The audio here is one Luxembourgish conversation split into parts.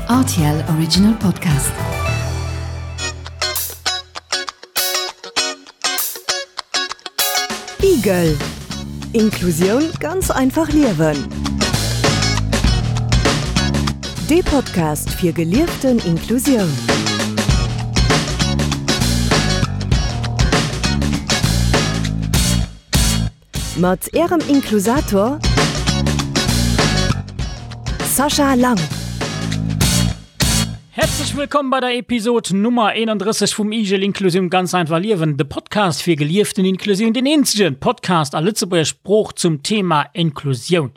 RTL Original Podcast. Igel Inklusioun ganz einfach liewen. Dee Podcast fir gelieften Inklusioun. Mat Ärem Inklusator Sascha Lang. Herzlech wëllkomm bei der Episod Nummer 31 vum Igel Inklusioun ganz einfach liewen, de Podcast fir gelieften Inklusioun, den eenzegen Podcast a Lëtzebuerger Sprooch zum Thema Inklusioun.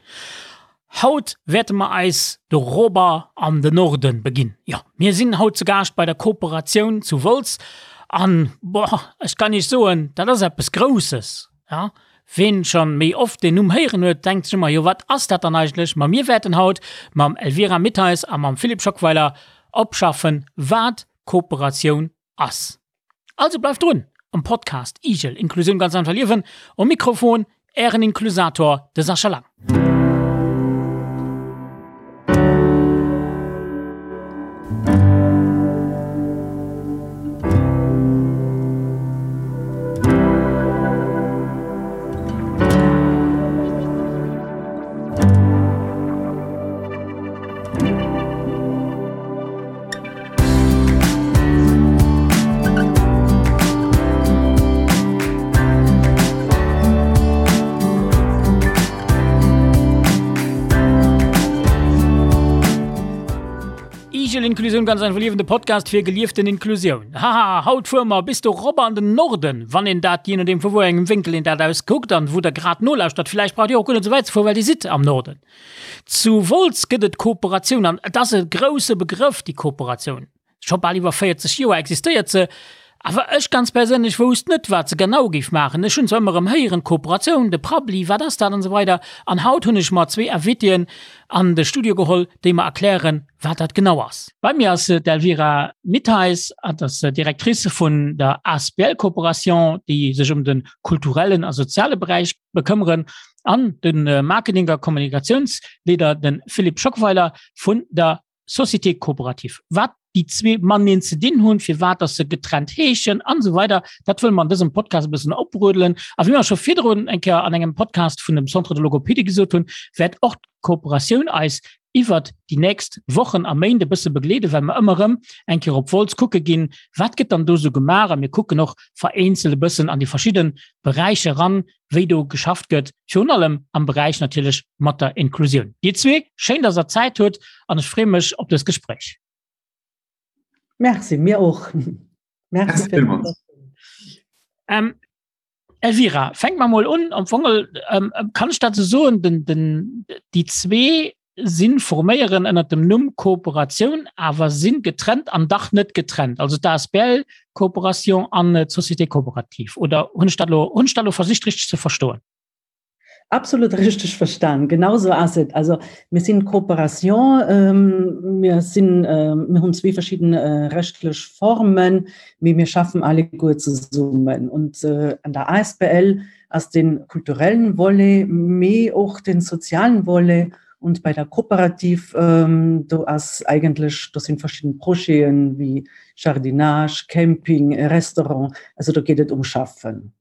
Haut wäerte mer eis de Rober an de Norden beginn. Jo, mir sinn haut zu Gaascht bei der Kooperatioun zu Wolz an, boah, ech kann iech soen, dat ass eppes Grousses. Ja, ween schon méi oft deen Numm héieren huet, denkt sech ëmmer, jo wat ass dat dann eigentlech? Ma mir wäerten haut mam Elvira Mittheis a mam Philippe Schockweiler opschaffen, wat Kooperatioun ass. Also bleift drun am Podcast Igel, Inklusioun ganz einfach liewen. Um Mikrofon Ären Inklusator, de Sascha Lang. Igel Inklusioun ganz einfach liewen, de Podcast fir gelieften Inklusioun. Haha, haut fuere mer bis do rop an den Norden, wann een dat, jee nodeem vu wou engem Wénkel een dat aus kuckt an wou der grad nolauschtert. Villäicht braucht dir och guer net esou wäit ze fueren, well dir sidd am Norden. Zu Wolz gëtt et Kooperatioun an et ass e grousse Begrëff, déi Kooperatioun. Scho bal iwwer 40 Joer existéiert se. Awer ech ganz perséinlech wousst net, wat se genau géif maachen. Ech hunn zwar ëmmer erëm héieren, Kooperatioun, de Prabbeli, wat ass dat an esou weider. An haut hunn ech mer zwee Invitéen an de Studio geholl, déi mer erklären, wat dat genau ass. Bei mir ass d'Elvira Mittheis, hatt ass Directrice vun der asbl Coopération, déi sech ëm de kulturellen a soziale Beräich bekëmmeren, an de Marketing a Kommunikatiounsleader, de Philippe Schockweiler vun der Société coopérative. Wat déi zwee mateneen ze dinn hunn, firwat dass se getrennt heeschen an esou weider, dat wëlle mer an dësem Podcast e bëssen oprödelen. A wéi mer scho virdrun eng Kéier an engem Podcast vun dem Centre de Logopédie gesot hunn, wäert och d'Kooperatioun eis iwwert déi nächst Wochen a Méint e bësse begleeden, well mer ëmmer erëm eng Kéier op Wolz kucke ginn, wat gëtt dann do esou gemaach a mir kucken och vereenzelt e bëssen an déi verschidde Beräicher eran, wéi do geschafft gëtt, virun allem am Beräich natierlech mat der Inklusioun. Dir zwee, schéin, dass Der Zäit hutt an ech freeë mech op dëst Gespréich. Merci, mir och. Merci villmools. Ähm, Elvira, fänk mer mol un. Am Fong ähm, kann ech dat esou soen, den, den, déi zwee sinn forméieren ënnert dem Numm Kooperatioun, awer sinn getrennt an dach net getrennt, also d'ASBL Coopération an d'Société coopérative. Oder hunn ech dat elo, hunn ech dat elo versicht richteg ze verstoen? Absolut richteg verstan, genau sou ass et. Also mir sinn Coopération, mir sinn, mir hunn zwee verschidden rechtlech Formen, mee mir schaffen alleguer zesummen. Und an der asbl ass den kulturellen Volet, mee och den sozialen Volet und bei der Kooperativ do ass eigentlech, do sinn verschidden Projeten wéi Jardinage, Camping, Restaurant, also do geet et um Schaffen.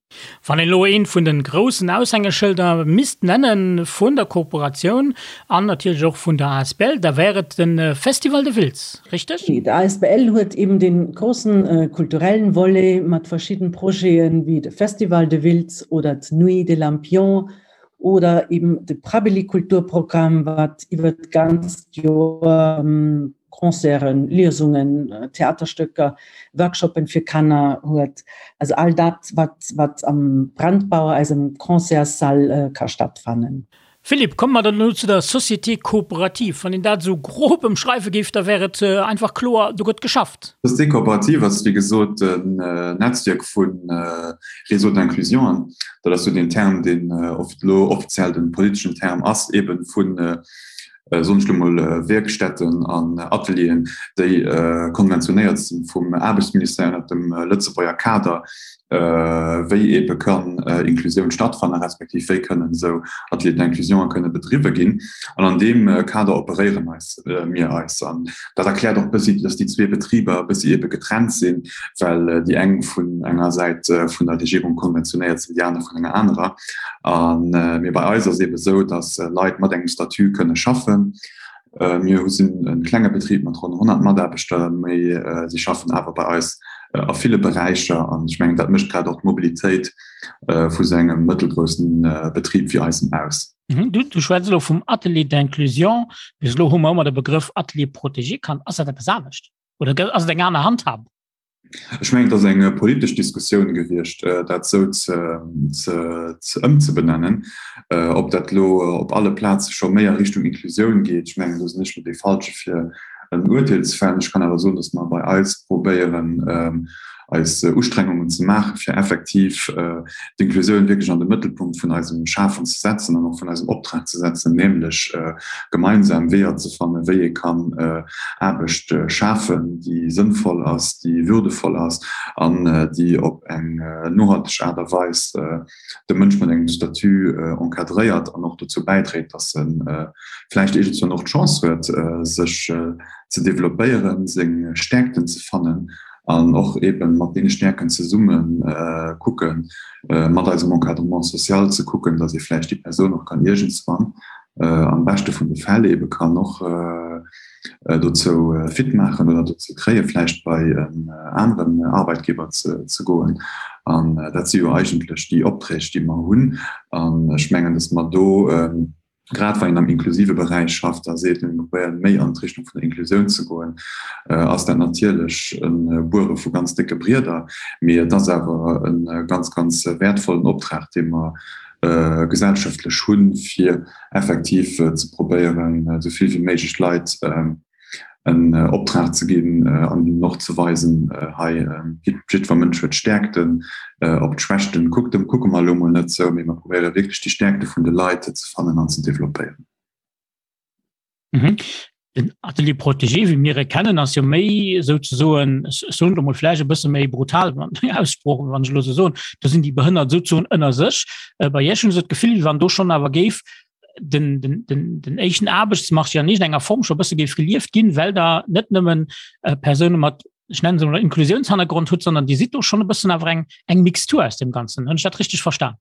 Wann een elo eent vun de groussen Aushängeschëlder misst nenne vun der Kooperatioun an natierlech och vun der asbl, da wär et de Festival de Wiltz, richteg? D'ASBL huet eben dee groussen kulturellen Volet mat verschidden Projeten wéi de Festival de Wiltz oder d'Nuit des Lampions oder eben de Prabbeli Kulturprogramm, wat iwwer d'ganzt Joer Concerten, Liesungen, Theaterstöcker, Workshoppen fir Kanner huet. Also all dat, wat, wat am Brandbauer, eisem Concertssall, ka stattfannen. Philippe, komme mer dann elo zu der Société coopérative. Wann een dat esou grob ëmschreiwe géif, da wär et einfach kloer, do gëtt geschafft. D'Société coopérative ass, wéi gesot, en Netzwierk vu Réseaux d'inclusion. Dat ass esou deen Term, deen elo offiziell de politeschen Term ass, eebe vu. Soen ech lo mol, Wierkstätten an Atelieren, déi konventionéiert sinn vum Aarbechtsministère ënnert dem Lëtzebuerger Kader, wéi eebe kann Inklusioun stattfannen, respektiv wéi kënnen esou Ateliers d'inclusion kënne bedriwwe ginn. An an deem Kader operéieren eis mir eis. An dat erkläert och e bëssi, dass déi zwee Betriber e bëssi eebe getrennt sinn, well déi eng vun enger Säit vun der Regierung konventionéiert sinn, déi aner vun enger anerer. A mee bei eis ass eebe esou, dass Leit mat engem Statut kënne schaffen. Mir hu sinn e klenge Betrib mat ronn 100 Mataarbechter, mee si schaffen awer bei eis a ville Beräicher. An ech mengen, dat mécht grad och d'Mobilitéit vu sou engem mëttelgroussen Betrib wéi eisem aus. Du, du schwätz elo vum Atelier d'inclusion. Bis elo hu mer ëmmer de Begrëff Atelier protégé kannt. Ass dat eppes anescht oder ass et eng aner Handhabung? Ech mengen, et ass eng politesch Diskussioun gewiescht, dat esou ze ëmzebenennen. Ob dat elo op alle Plaze scho méi a Richtung Inklusioun geet, ech mengen, do sinn ech elo dee Falsche fir en Urteel ze fällen. Ech kann awer soen, datt mer bei eis probéieren, eis Ustrengungen ze maachen, fir effektiv d'Inklusioun wierklech an de Mëttelpunkt vun eisem Schafen ze setzen an och vun eisem Optrag ze setzen, nämlech gemeinsam Weeër ze fannen, wéi ee kann Aarbecht schafen, déi sënnvoll ass, déi würdevoll ass an déi op eng nohalteg Aart a Weis de Mënsch mat engem Statut encadréiert an och dozou bäidréit, dass e vläicht iergendswann och d'Chance huet, sech ze developpéieren, seng Stäerkten ze fannen an och eeben mat deene Stäerken zesumme kucken, mat eisem Encadrement social ze kucken, dass ee vläicht déi Persoun och kann iergendswann am beschte vun de Fäll eebe kann och dozou fit maachen oder dozou kréie vläicht bei en aneren Arbeitgeber ze goen. An dat si jo eigentlech déi Opträg, déi mer hunn. An ech mengen, dass mer do, grad wann een am inklusive Beräich schafft a seet, mir probéieren méi an d'Richtung vun der Inklusioun ze goen, ass dat natierlech e Buere vu ganz décke Brieder. Mee et ass awer e ganz, ganz wäertvollen Optrag, dee mer gesellschaftlech hunn, fir effektiv ze probéieren, esou vill wéi méiglech Leit en Optrag ze ginn an hinnen och ze weisen, hei, jiddwer Mënsch huet Stäerkten, op d'Schwächten kucke mer elo mol net esou, mee mer probéiere wierklech déi Stäerkte vun de Leit ze fannen an ze developpéieren. Den Atelier protégé, wéi mir e kennen, ass jo méi souzesoen, ech soen et emol vläicht e bësse méi brutal, Aussprooch, wann ech elo esou soen, do sinn déi Behënnert souzesoen ënner sech. Bei Iech hunn ech esou d'Gefill, wéi wann do schonn awer géif den, den, den, den éischten Aarbechtsmarché an iergendenger Form scho e bësse géif gelieft ginn, well Der net nëmmen Persoune mat, ech nennen se emol, Inklusiounshannergrond hutt, sondern Dir sidd do schonn e bëssen awer eng, eng Mixtur aus deem Ganzen. Hunn ech dat richteg verstan?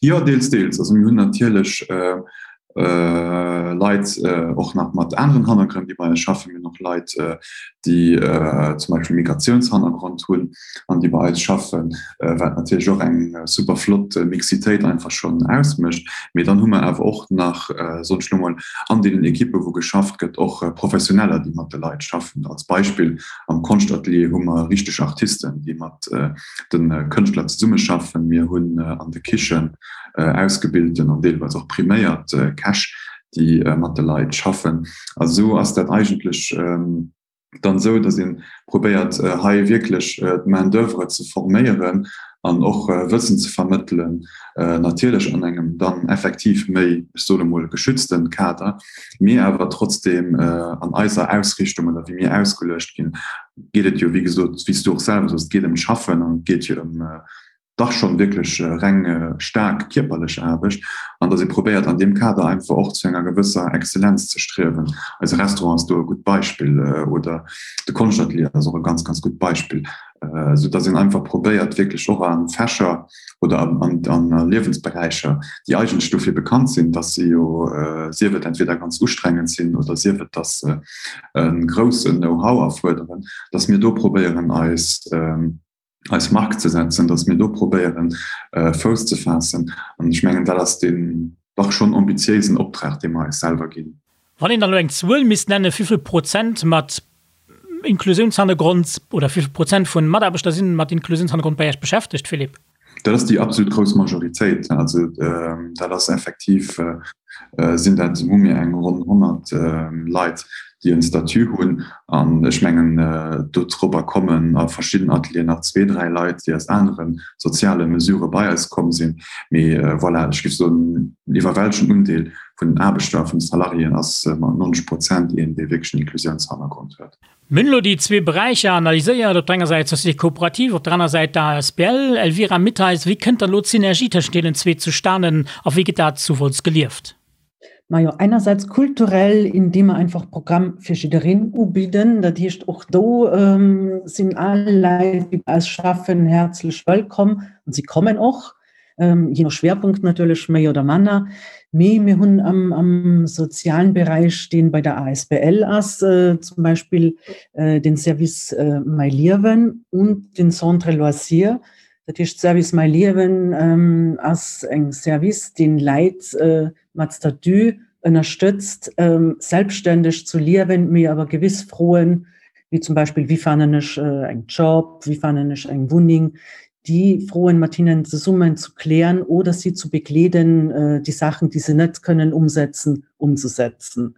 Jo, deels, deels. Also mir hunn natierlech Leit och nach mat aneren Hannergrënn, déi bei eis schaffen. Mir hunn och Leit, déi zum Beispill Migratiounshannergrond hunn an déi bei eis schaffen, wat natierlech och eng super flott Mixitéit einfach schonn ausmécht. Mee dann hu mer awer och nach, soen ech elo mol, an deenen Ekippe wou geschafft gëtt, och Professioneller, déi mat de Leit schaffen. Als Beispill am Konschtatelier hu mer richteg Artisten, déi mat de Kënschtler zesummeschaffen. Mir hunn an de Kichen ausgebilten an deelweis och priméiert Käch, déi mat de Leit schaffen. A sou ass dat eigentlech dann esou, datt ee probéiert hei wierklech d'Main d'oeuvre ze forméieren an och Wëssen ze vermëttelen, natierlech an engem dann effektiv méi, ech soen emol, geschützten Kader, mee awer trotzdeem an eiser Ausrichtung oder wéi mir ausgeluecht ginn, geet et jo, wéi gesot, wéi s du och selwer soos, et geet ëm d'Schaffen an et geet jo ëm dach schonn wierklech reng staark kierperlech Aarbecht an datt ee probéiert an deem Kader einfach och zu enger gewësser Exzellenz ze striewen. Eise Restaurant ass do e gutt Beispill oder de Konschtatelier ass och e ganz, ganz gutt Beispill, esou datt een einfach probéiert wierklech och a Fächer oder an Liewensberäicher, déi eigentlech dofir bekannt sinn, datt se jo sief et entweder ganz ustrengend sinn oder sief et, datt se e groussen Know-how erfuerderen, datt mir do probéieren eis eis Mark ze setzen, datt mir do probéieren Fouss ze faassen. An ech mengen, dat ass deen dach schonn ambitiéisen Optrag, dee mer eis selwer ginn. Wann een dann elo eng Zuel misst nennen, wéivill Prozent mat Inklusiounshannergrond oder wéivill Prozent vun Mataarbechter sinn mat Inklusiounshannergrond bei Iech beschäftegt, Philippe? Dat ass déi absolut grouss Majoritéit. Also dat ass effektiv. sinn dat, hu mir eng ronn 100 Leit, déi en Statut hunn. An ech mengen, dodrobber kommen a verschidden Atelieren nach zwee, dräi Leit, déi aus anere soziale Mesurë bei eis komm sinn. Mee voilà, ech géif soen, den iwwerwältegenden Undeel vun den Aarbechter, vun de Salariéen ass mat 90 Prozent een, dee wierklech en Inklusiounshannergrond huet. Mir hunn elo déi zwee Beräicher analyséiert, op der enger Säit d'Société coopérative, op der aner Säit d'ASBL. Elvira Mittheis, wéi kënnt dann elo d'Synergie tëschent deenen zwee zustanen a wéi gëtt dat zu Wolz gelieft? Majo, einerseits kulturell, indem mer einfach Programm fir jiddereen ubidden. Dat heescht, och do sinn all Leit, déi bei eis schaffen, häerzlech wëllkomm an si kommen och. je no Schwerpunkt natierlech méi oder manner. Mee mir hunn am, am sozialen Beräich, deen bei der ASBL ass, zum Beispill den Service Mäi Liewen und den Centre Loisir. Dat heescht, Service Mäi Liewen ass eng Service, deen Läit mat Statut ënnerstëtzt, selbstständeg zu liewen, mee awer gewiss Froen, wéi zum Beispill, wéi fannen ech eng Job, wéi fannen ech eng Wunneng, déi Froen mat hinnen zesummen zu klären oder si zu begleeden, déi Saachen, déi se net kënnen umsetzen, umzusetzen.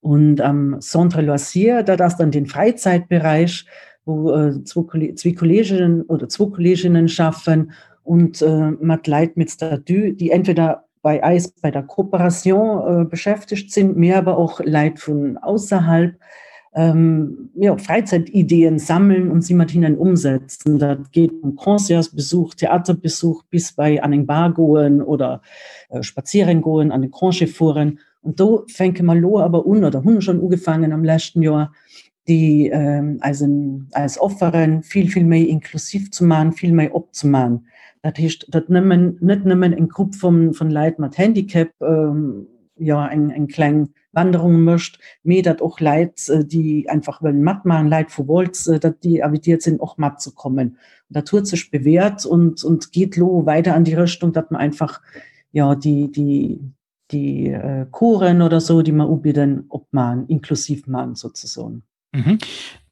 Und am Centre Loisir, dat ass dann den Fräizäitberäich, wou zwee Kolleegen oder zwou Kolleeginnen schaffen und mat Leit mit Statut, déi entweder bei eis bei der Kooperation beschäftegt sinn, mee awer och Leit vun ausserhalb, jo, Fräizäitideen sammeln und si mat hinnen umsetzen. Dat geet vum Concertsbesuch, Theaterbesuch bis bei an eng Bar goen oder spazieren goen, an de Congé fueren. Und do fänke mer elo awer un oder hunn schonn ugefaangen am leschten Joer, déi eisen, eis Offere vill, vill méi inklusiv ze maachen, vill méi opzemaachen. Dat heescht, datt nëmmen, net nëmmen eng Grupp vun, vun Leit mat Handicap, jo, eng, eng kleng Wanderung mécht, mee datt och Leit, déi einfach wëllen matmaachen, Leit vu Wolz, datt déi invitiert sinn, och matzekommen. Dat huet sech bewährt und, und geet elo weider an déi Richtung, datt mer einfach, jo, déi, déi, déi Coursen oder sou, déi mer ubidden, opmaen, inklusiv man sozesoen. Mhm.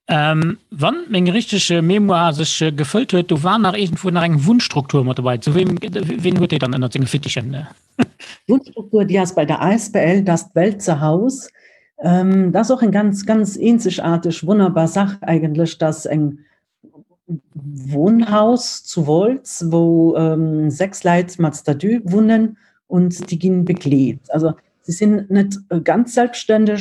Ähm, wann meng richteg Mémoire sech gefëllt huet, do war nach iergendwou nach eng Wunnstruktur mat dobäi. Zu wem, wien huet déi dann ënnert senge Fittichen? Wunnstruktur, déi ass bei der Asbl Das Welzer Haus. Ähm, dat ass och eng ganz, ganz eenzegaarteg, wonnerbar Sach eigentlech, dass eng Wohnhaus zu Wolz, wou 6 Leit mat Statut wunnen und déi ginn begleet. Also si sinn net ganz selbstständeg,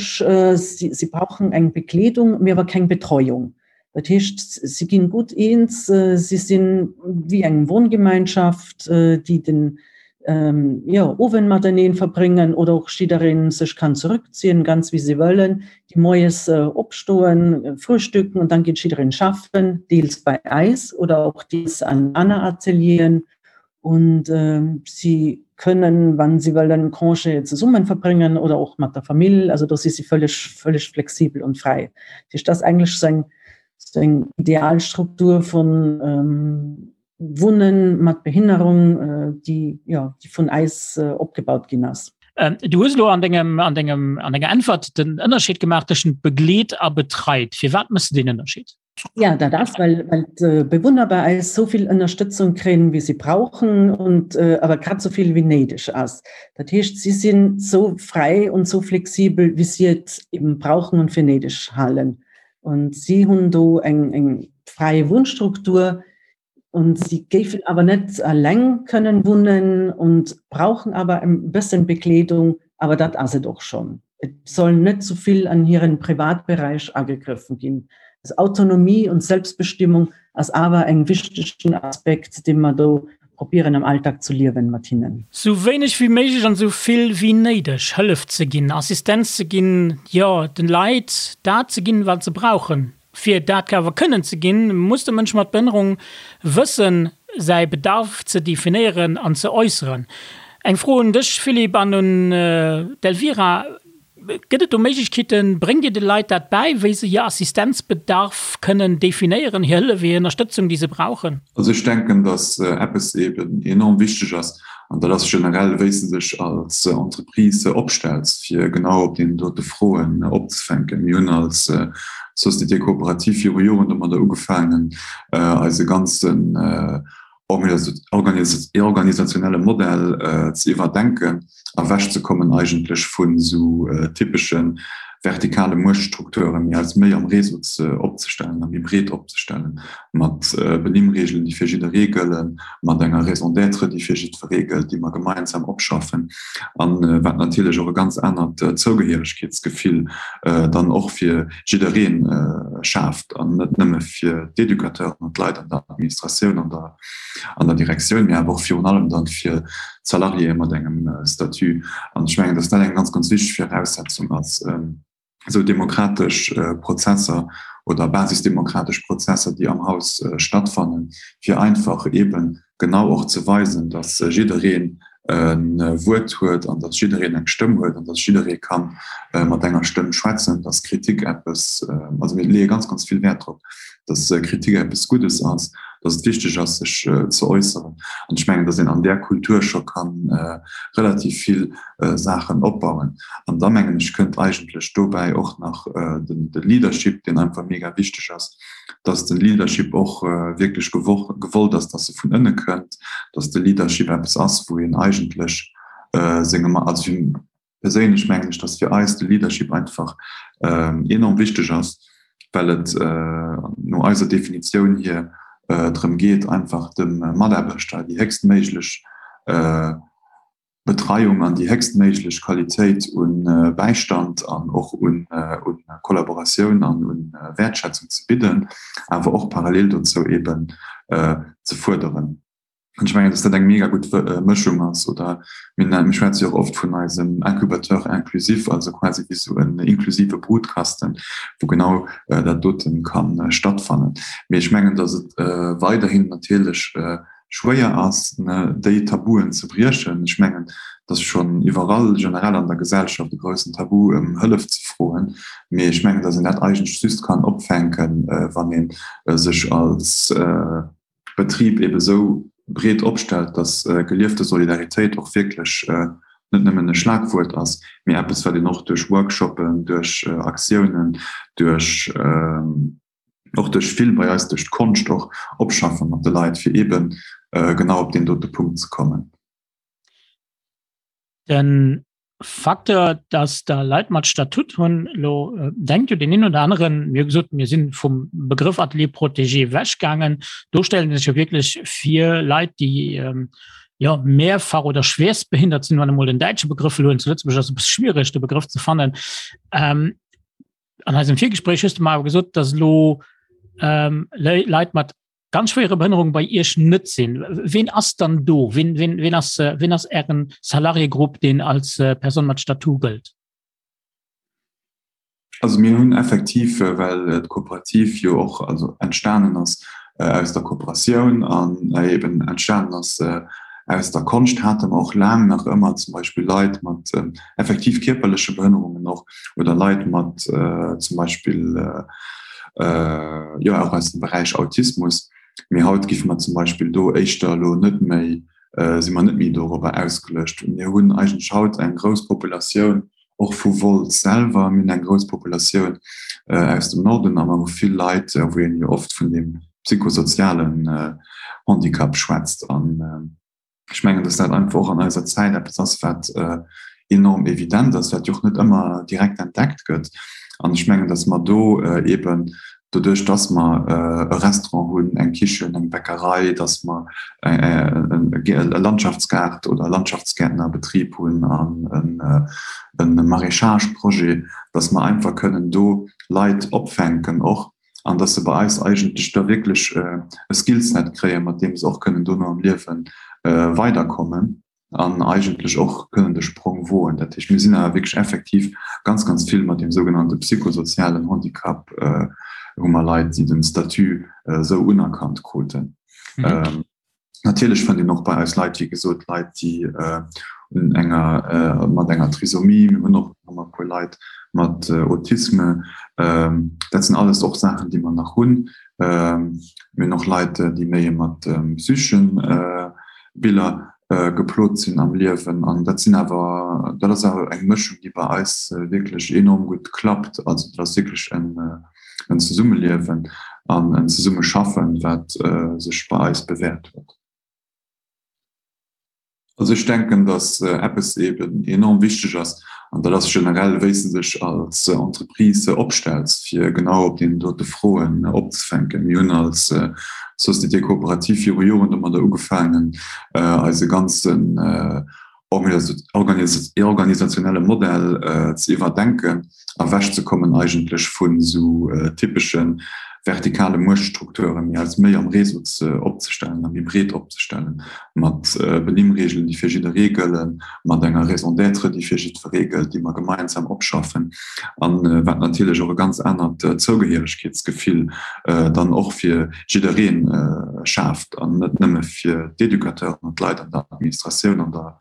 si brauchen eng Begleedung, mee awer keng Betreuung. Dat heescht, si ginn gutt eens, si sinn wéi eng Wohngemeinschaft, déi den jo, Owend mateneen verbréngen oder och jiddereen sech kann zurückziehen, ganz wéi se wëllen, déi moies opstoen, frühstücken und dann geet jiddereen schaffen, deels bei eis oder och deels an aner Atelieren und si kënnen, wann si wëllen, Congé zesummen verbréngen oder och mat der Famill, also do si si völleg, völleg flexibel und fräi. Dat heescht, dat ass eigentlech sou eng, sou eng Idealstruktur vun Wunnen mat Behinnerung, déi, jo, déi vun eis opgebaut ginn ass. Du hues elo an dengem, an dengem, an denger Äntwert den Ënnerscheed gemaach tëschent begleet a betreit. Firwat méchs de deen Ënnerscheed? Ja, dat ass, well, well d'Bewunner bei eis esou vill Ënnerstëtzung kréien, wéi si brauchen und awer grad esou vill, wéi néideg ass. Dat heescht, si sinn esou fräi und esou flexibel, wéi si et eben brauchen und fir néideg halen. Und si hunn do eng, eng fräi Wunnstruktur, Und sie géifen awer net eleng kënnen wunnen und brauchen awer e bëssen Begleedung, awer dat ass et och schonn. Et soll net zu vill an hiren Privatberäich agegriffen ginn. Also Autonomie und Selbstbestimmung ass awer eng wichtegen Aspekt, dee mer do probieren am Alltag zu liewen mat hinnen. Sou wéineg wéi méiglech an sou vill wéi néideg Hëllef ze ginn, Assistenz ze ginn, jo den Leit dat ze ginn, wat se brauchen. Fir dat awer kënnen ze ginn, muss de Mënsch mat Behënnerung wëssen, säi Bedarf ze definéieren an ze äusseren. Eng Fro un dech, Philippe, an un d'Elvira, Gëtt et do Méiglechkeeten, bréngt Dir de Leit dat bäi, wéi se hir Assistenzbedarf kënnen definéieren, hir Hëllef, hir Ënnerstëtzung, déi se brauchen? Also ech denken, datt eppes eeben enorm wichteg ass, an dat ass generell, wéi s de dech als Entreprise opstells, fir genau op deenen dote Froen opzefänken. Mir hunn als Société coopérative viru Joren domadder ugefaangen, eise ganzen. Organisationelle Modell ze iwwerdenken a wechzekommen eigentlech vun esou typesche vertikale Muechtstrukturen, mee eis méi am Réseau ze opzestellen a méi breet opzestellen, mat Benimmreegelen, déi fir jidderee gëllen, mat enger Raison d'être, déi fir jiddweree gëllt, déi mer gemeinsam opschaffen an wat natierlech och e ganz anert Zougehéieregkeetsgefill dann och fir jidderee schaaft an net nëmme fir d'Educateuren an d'Leit an der Administratioun an der an der Direktioun, mee awer och virun allem dann fir d'Salariéë mat engem Statut. An ech mengen, dass dat eng ganz, ganz wichteg Viraussetzung ass, esou demokratesch Prozesser oder basisdemokratesch Prozesser, déi am Haus stattfannen, fir einfach eeben genau och ze weisen, dass jiddereen e Wuert huet an dass jiddereen eng Stëmm huet an dass jidderee ka mat enger Stëmm schwätzen, dass Kritik eppes, also mir leeë ganz, ganz vill Wäert drop, dass Kritik eppes Guddes ass, dass et wichteg ass, sech ze äusseren. An ech mengen, dass een an där Kultur scho ka relativ vill Saachen opbauen. An da mengen ech, kënnt eigentlech dobäi och nach de Leadership, deen einfach mega wichteg ass, dass de Leadership och wierklech gewollt ass, dass e vun ënne kënnt, dass de Leadership eppes ass, wou een eigentlech sengem, also perséinlech mengen ech, dass fir eis de Leadership einfach enorm wichteg ass, well et no eiser Definitioun hier drëm geet, einfach dem Mataarbechter déi héchstméiglech Betreiung an déi héchstméiglech Qualitéit u Bäistand an och u Kollaboratioun an u Wäertschätzung ze bidden, awer och parallel dozou eeben ze fuerderen. An ech mengen, dass dat eng mega gutt Mëschung ass. Oder mir mir schwätze jo och oft vun eisem Incubateur inclusif, also quasi wéi esou en inklusive Brutkasten, wou genau dat dote ka stattfannen. Mee ech mengen, dass et weiderhin natierlech schwéier ass, déi Tabuen ze briechen. Ech mengen, et ass schonn iwwerall generell an der Gesellschaft e groussen Tabu, ëm Hëllef ze froen. Mee ech mengen, datt een dat eigentlech just kann opfänken, wann ee sech als Betrib eebe sou breet opstellt, datt geliefte Solidaritéit och wierklech net nëmmen e Schlagwuert ass, mee eppes, wat een och duerch Workshoppen, duerch Aktiounen, duerch. och duerch vill bei eis duerch d'Konscht och opschaffe mat de Leit, fir eeben genau op deen dote Punkt ze kommen. De Facteur, dass Der Leit mat Statut hunn, elo denkt jo deen een oder aneren, mir hu gesot, mir si vum Begrëff Atelier protégé ewechgaangen, do stellen sech jo wierklech vir Leit, déi jo mehrfach oder schwerstbehindert sinn, wann emol den däitsche Begrëff elo hunn, zu Lëtzebuerg ass e bësse schwiereg de Begrëff ze fannen. An eisem Virgespréich hues du mer awer gesot, dass elo ähm, Leit mat ganz schwéiere Behënnerung bei Iech net sinn. Ween ass dann do? Ween, ween, ween ass, äh, ween ass Ären Salariégrupp, deen als äh, Person mat Statut gëllt? Also mir hunn effektiv, äh, well äh, d'Kooperativ jo och also entstanen ass äh, aus der Kooperatioun an äh, eben entstanen ass äh, aus der Konscht, hate mer och laang nach ëmmer zum Beispill Leit mat äh, effektiv kierperleche Behënnerungen och oder Leit mat zum Beispill jo och aus dem Beräich Autismus. Mee haut géife mer zum Beispill do éischter elo net méi, si mer net méi dorobber ausgeluecht. Mir hunn eigentlech haut eng grouss Populatioun och vu Wolz selwer, mir hunn eng grouss Populatioun aus dem Norden a mer hu vill Leit, wou een jo oft vun deem psychosozialen Handicap schwätzt. An Ech mengen, dass dat einfach och an eiser Zäit eppes ass, wat enorm evident ass, wat jo och net ëmmer direkt entdeckt gëtt. An ech mengen, dass mer do eeben doduerch, dass mer e Restaurant hunn, eng Kichen, eng Bäckerei, dass mer e Landschaftsgaart oder Landschaftsgäertnerbetrib hunn an e Maraîchage-Projet, dass mer einfach kënnen do Leit opfänken och, an dass se bei eis eigentlech da wierklech e Skillset kréien, mat deem se och kënnen dono am Liewe weiderkommen an eigentlech och kënnen de Sprong woen. Dat heescht, mir sinn awer wierklech effektiv ganz, ganz vill mat deem sougenannte psychosozialen Handicap hu mer Leit, déi den Statut esou unerkannt kruten. Natierlech fënnt een och bei eis Leit, wéi gesot, Leit, déi un enger, mat enger Trisomie, mir hunn och nach e puer Leit mat Autisme. Dat sinn alles och Saachen, déi mer nach hunn. Mir hunn och Leit, déi méi mat psycheschen Biller geplot sinn am Liewen. An dat sinn awer, dat ass awer eng Mëschung, déi bei eis wierklech enorm gutt klappt. Also dat ass wierklech en. en Zesummeliewen an en Zesummeschaffen, wat sech bei eis bewäert huet. Also ech denken, datt eppes eben enorm wichteg ass, an dat ass generell, wéi s de dech als Entreprise opstells, fir genau op deenen dote Froen opzefänken. Mir hunn als Société coopérative viru Joren domadder ugefaangen, eise ganzen organisationelle Modell ze iwwerdenken, ewechzekommen eigentlech vun esou typesche vertikale Muechtstrukturen, mee eis méi am Réseau ze opzestellen a méi breet opzestellen, mat Benimmreegelen, déi fir jidderee gëllen, mat enger Raison d'être, déi fir jiddweree gëllt, déi mer gemeinsam opschaffen, a wat natierlech och e ganz anert Zougehéieregkeetsgefill dann och fir jidderee schaaft an net nëmme fir d'Educateuren an d'Leit an der Administratioun an der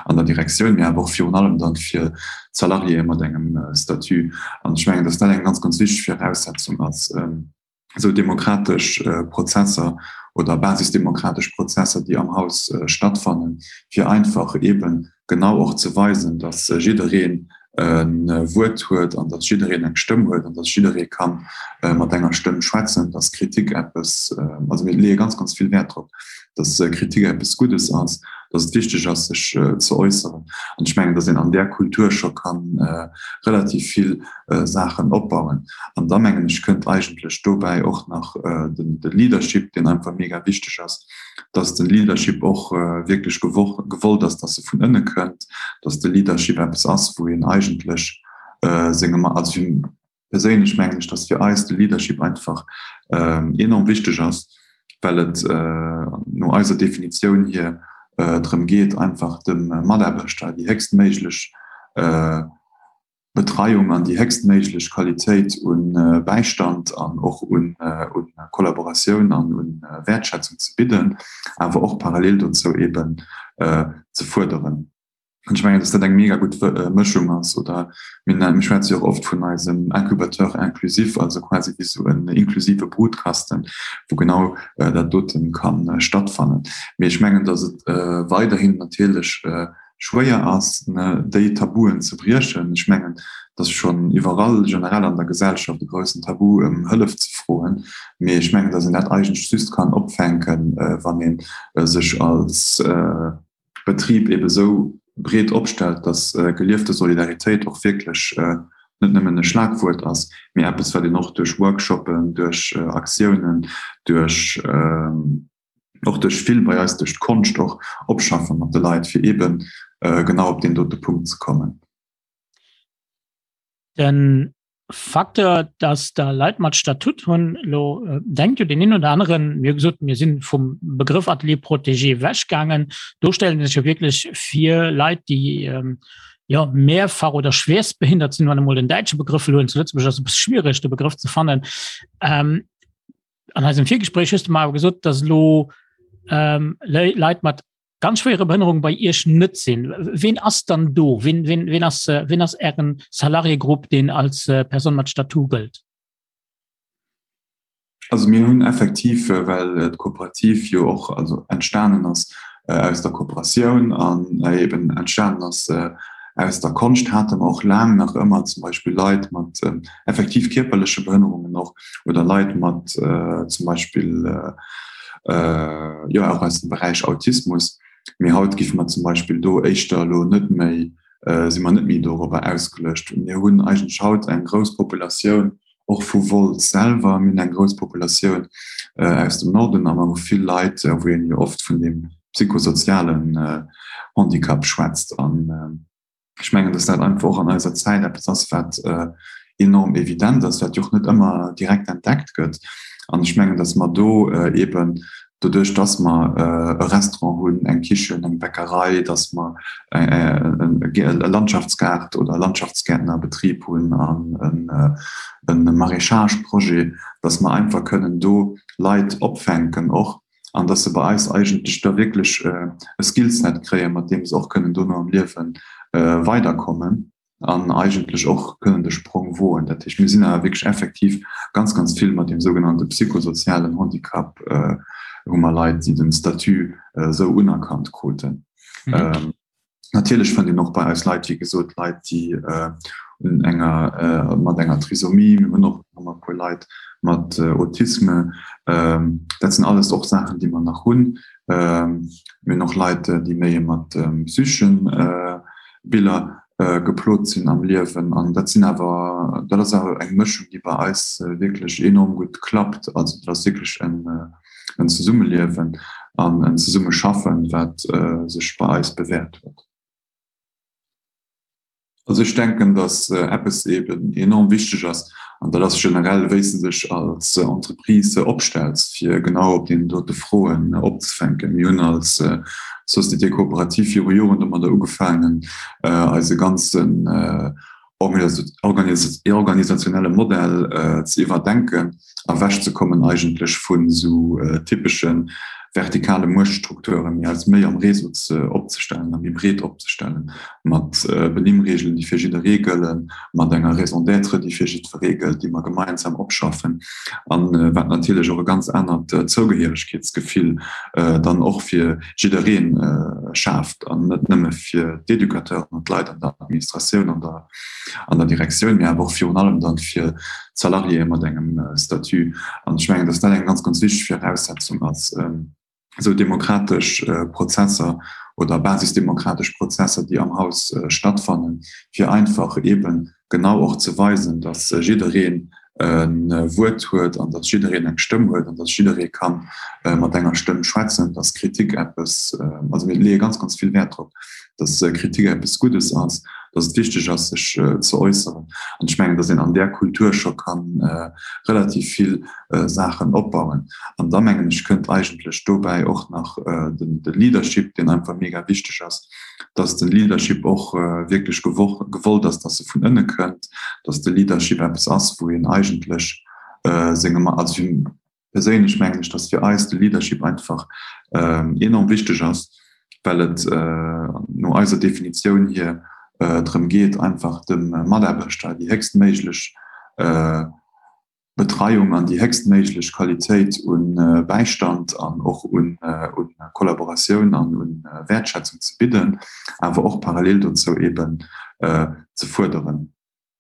an der Direktioun, mee awer och virun allem dann fir d'Salariéë mat engem Statut. An ech mengen, dass dat eng ganz, ganz wichteg Viraussetzung ass, esou demokratesch Prozesser oder basisdemokratesch Prozesser, déi am Haus stattfannen, fir einfach eeben genau och ze weisen, dass jiddereen e Wuert huet an dass jiddereen eng Stëmm huet an dass jidderee ka mat enger Stëmm schwätzen, dass Kritik eppes, also mir leeë ganz, ganz vill Wäert drop, dass Kritik eppes Guddes ass, dass et wichteg ass, sech ze äusseren. An ech mengen, dass een an där Kultur scho ka relativ vill Saachen opbauen. An da mengen ech, kënnt eigentlech dobäi och nach de Leadership, deen einfach mega wichteg ass, dass de Leadership och wierklech gewollt ass, dass e vun ënne kënnt, dass de Leadership eppes ass, wou een eigentlech senge, also fir perséinlech mengen ech, dass fir eis de Leadership einfach enorm wichteg ass, well et no eiser Definitioun hier drëm geet, einfach dem Mataarbechter déi héchstméiglech Betreiung an déi héchstméiglech Qualitéit u Bäistand an och u Kollaboratioun an u Wäertschätzung ze bidden, awer och parallel dozou eeben ze fuerderen. An ech mengen, dass dat eng mega gutt Mëschung ass. Oder mir mir schwätze jo och oft vun eisem Incubateur inclusif, also quasi wéi esou en inklusive Brutkasten, wou genau dat dote ka stattfannen. Mee ech mengen, dass et weiderhin natierlech schwéier ass, déi Tabuen ze briechen. Ech mengen, et ass schonn iwwerall generell an der Gesellschaft e groussen Tabu, ëm Hëllef ze froen. Mee ech mengen, datt een dat eigentlech just kann opfänken, wann ee sech als Betrib ebe sou breet opstellt, datt geliefte Solidaritéit och wierklech net nëmmen e Schlagwuert ass, mee eppes, wat een och duerch Workshoppen, duerch Aktiounen, duerch. och duerch vill bei eis duerch d'Konscht och opschaffe mat de Leit, fir eeben genau op deen dote Punkt ze kommen. De Facteur, dass der Leit mat Statut hunn, elo denkt jo deen een oder aneren, mir hu gesot, mir si vum Begrëff Atelier protégé ewechgaangen, do stellen sech jo wierklech vir Leit, déi jo mehrfach oder schwerstbehindert sinn, wann emol den däitsche Begrëff elo hunn, zu Lëtzebuerg ass e bësse schwiereg de Begrëff ze fannen. An eisem Virgespréich hues du mer awer gesot, dass elo ähm, Leit mat ganz schwere Behënnerung bei Iech net sinn. Ween ass dann do? Ween, ween, ween ass, äh, ween ass Ären Salariégrupp, deen als äh, Person mat Statut gëllt? Also mir hunn effektiv, äh, well äh, d'Kooperativ jo och also entstanen ass äh, aus der Kooperatioun an äh, eben entstanen ass äh, aus der Konscht, hate mer och laang nach ëmmer zum Beispill Leit mat äh, effektiv kierperleche Behënnerungen och oder Leit mat zum Beispill jo och aus dem Beräich Autismus. Mee haut giffe mer zum Beispill do éischter elo net méi, si mer net méi dorobber ausgeluecht. Mir hunn eigentlech haut eng grouss Populatioun och vu Wolz selwer, mir hunn eng grouss Populatioun aus dem Norden a mer hu vill Leit, wou een jo oft vun deem psychosozialen Handicap schwätzt. An Ech mengen, dass dat einfach och an eiser Zäit eppes ass, wat enorm evident ass, wat jo och net ëmmer direkt entdeckt gëtt. An ech mengen, dass mer do eeben doduerch, dass mer e Restaurant hunn, eng Kichen, eng Bäckerei, dass mer e Landschaftsgaart oder Landschaftsgäertnerbetrib hunn an e Maraîchage-Projet, dass mer einfach kënnen do Leit opfänken och, an dass se bei eis eigentlech da wierklech e Skillset kréien, mat deem se och kënnen dono am Liewe weiderkommen an eigentlech och kënnen de Sprong woen. Dat heescht, mir sinn awer wierklech effektiv ganz, ganz vill mat deem sougenannte psychosozialen Handicap hu mer Leit, déi den Statut esou unerkannt kruten. Natierlech fënnt een och bei eis Leit, wéi gesot, Leit, déi un enger, mat enger Trisomie, mir hunn och nach e puer Leit mat Autisme. Dat sinn alles och Saachen, déi mer nach hunn. Mir hunn och Leit, déi méi mat psycheschen Biller geplot sinn am Liewen. An dat sinn awer, dat ass awer eng Mëschung, déi bei eis wierklech enorm gutt klappt. Also dat ass wierklech en Zesummeliewen an en Zesummeschaffen, wat sech bei eis bewäert huet. Also ech denken, datt eppes eben enorm wichteg ass, an dat ass generell, wéi s de dech als Entreprise opstells, fir genau op deenen dote Froen opzefänken. Mir hunn als Société coopérative viru Joren domadder ugefaangen, eise ganzen organisationelle Modell ze iwwerdenken, ewechzekommen eigentlech vun esou typesche vertikale Muechtstrukturen, mee eis méi am Réseau ze opzestellen a méi breet opzestellen, mat Benimmreegelen, déi fir jidderee gëllen, mat enger Raison d'être, déi fir jiddweree gëllt, déi mer gemeinsam opschaffen, a wat natierlech och e ganz anert Zougehéieregkeetsgefill dann och fir jidderee schaaft an net nëmme fir d'Educateuren an d'Leit an der Administratioun an der an der Direktioun, mee awer och virun allem dann fir d'Salariéë mat engem Statut. An ech mengen, dass dat eng ganz, ganz wichteg Viraussetzung ass, esou demokratesch Prozesser oder basisdemokratesch Prozesser, déi am Haus stattfannen, fir einfach eeben genau och ze weisen, dass jiddereen e Wuert huet an dass jiddereen eng Stëmm huet an dass jidderee ka mat enger Stëmm schwätzen, dass Kritik eppes, also mir leeë ganz, ganz vill Wäert drop, dass Kritik eppes Guddes ass, dass et wichteg ass, sech ze äusseren. An ech mengen, dass een an där Kultur scho ka relativ vill Saachen opbauen. An da mengen ech, kënnt eigentlech dobäi och nach de Leadership, deen einfach mega wichteg ass, dass de Leadership och wierklech gewollt ass, dass e vun ënne kënnt, dass de Leadership eppes ass, wou een eigentlech senge, also fir perséinlech mengen ech, dass fir eis de Leadership einfach enorm wichteg ass, well et no eiser Definitioun hier drëm geet, einfach dem Mataarbechter déi héchstméiglech Betreiung an déi héchstméiglech Qualitéit u Bäistand an och u Kollaboratioun an u Wäertschätzung ze bidden, awer och parallel dozou eeben ze fuerderen.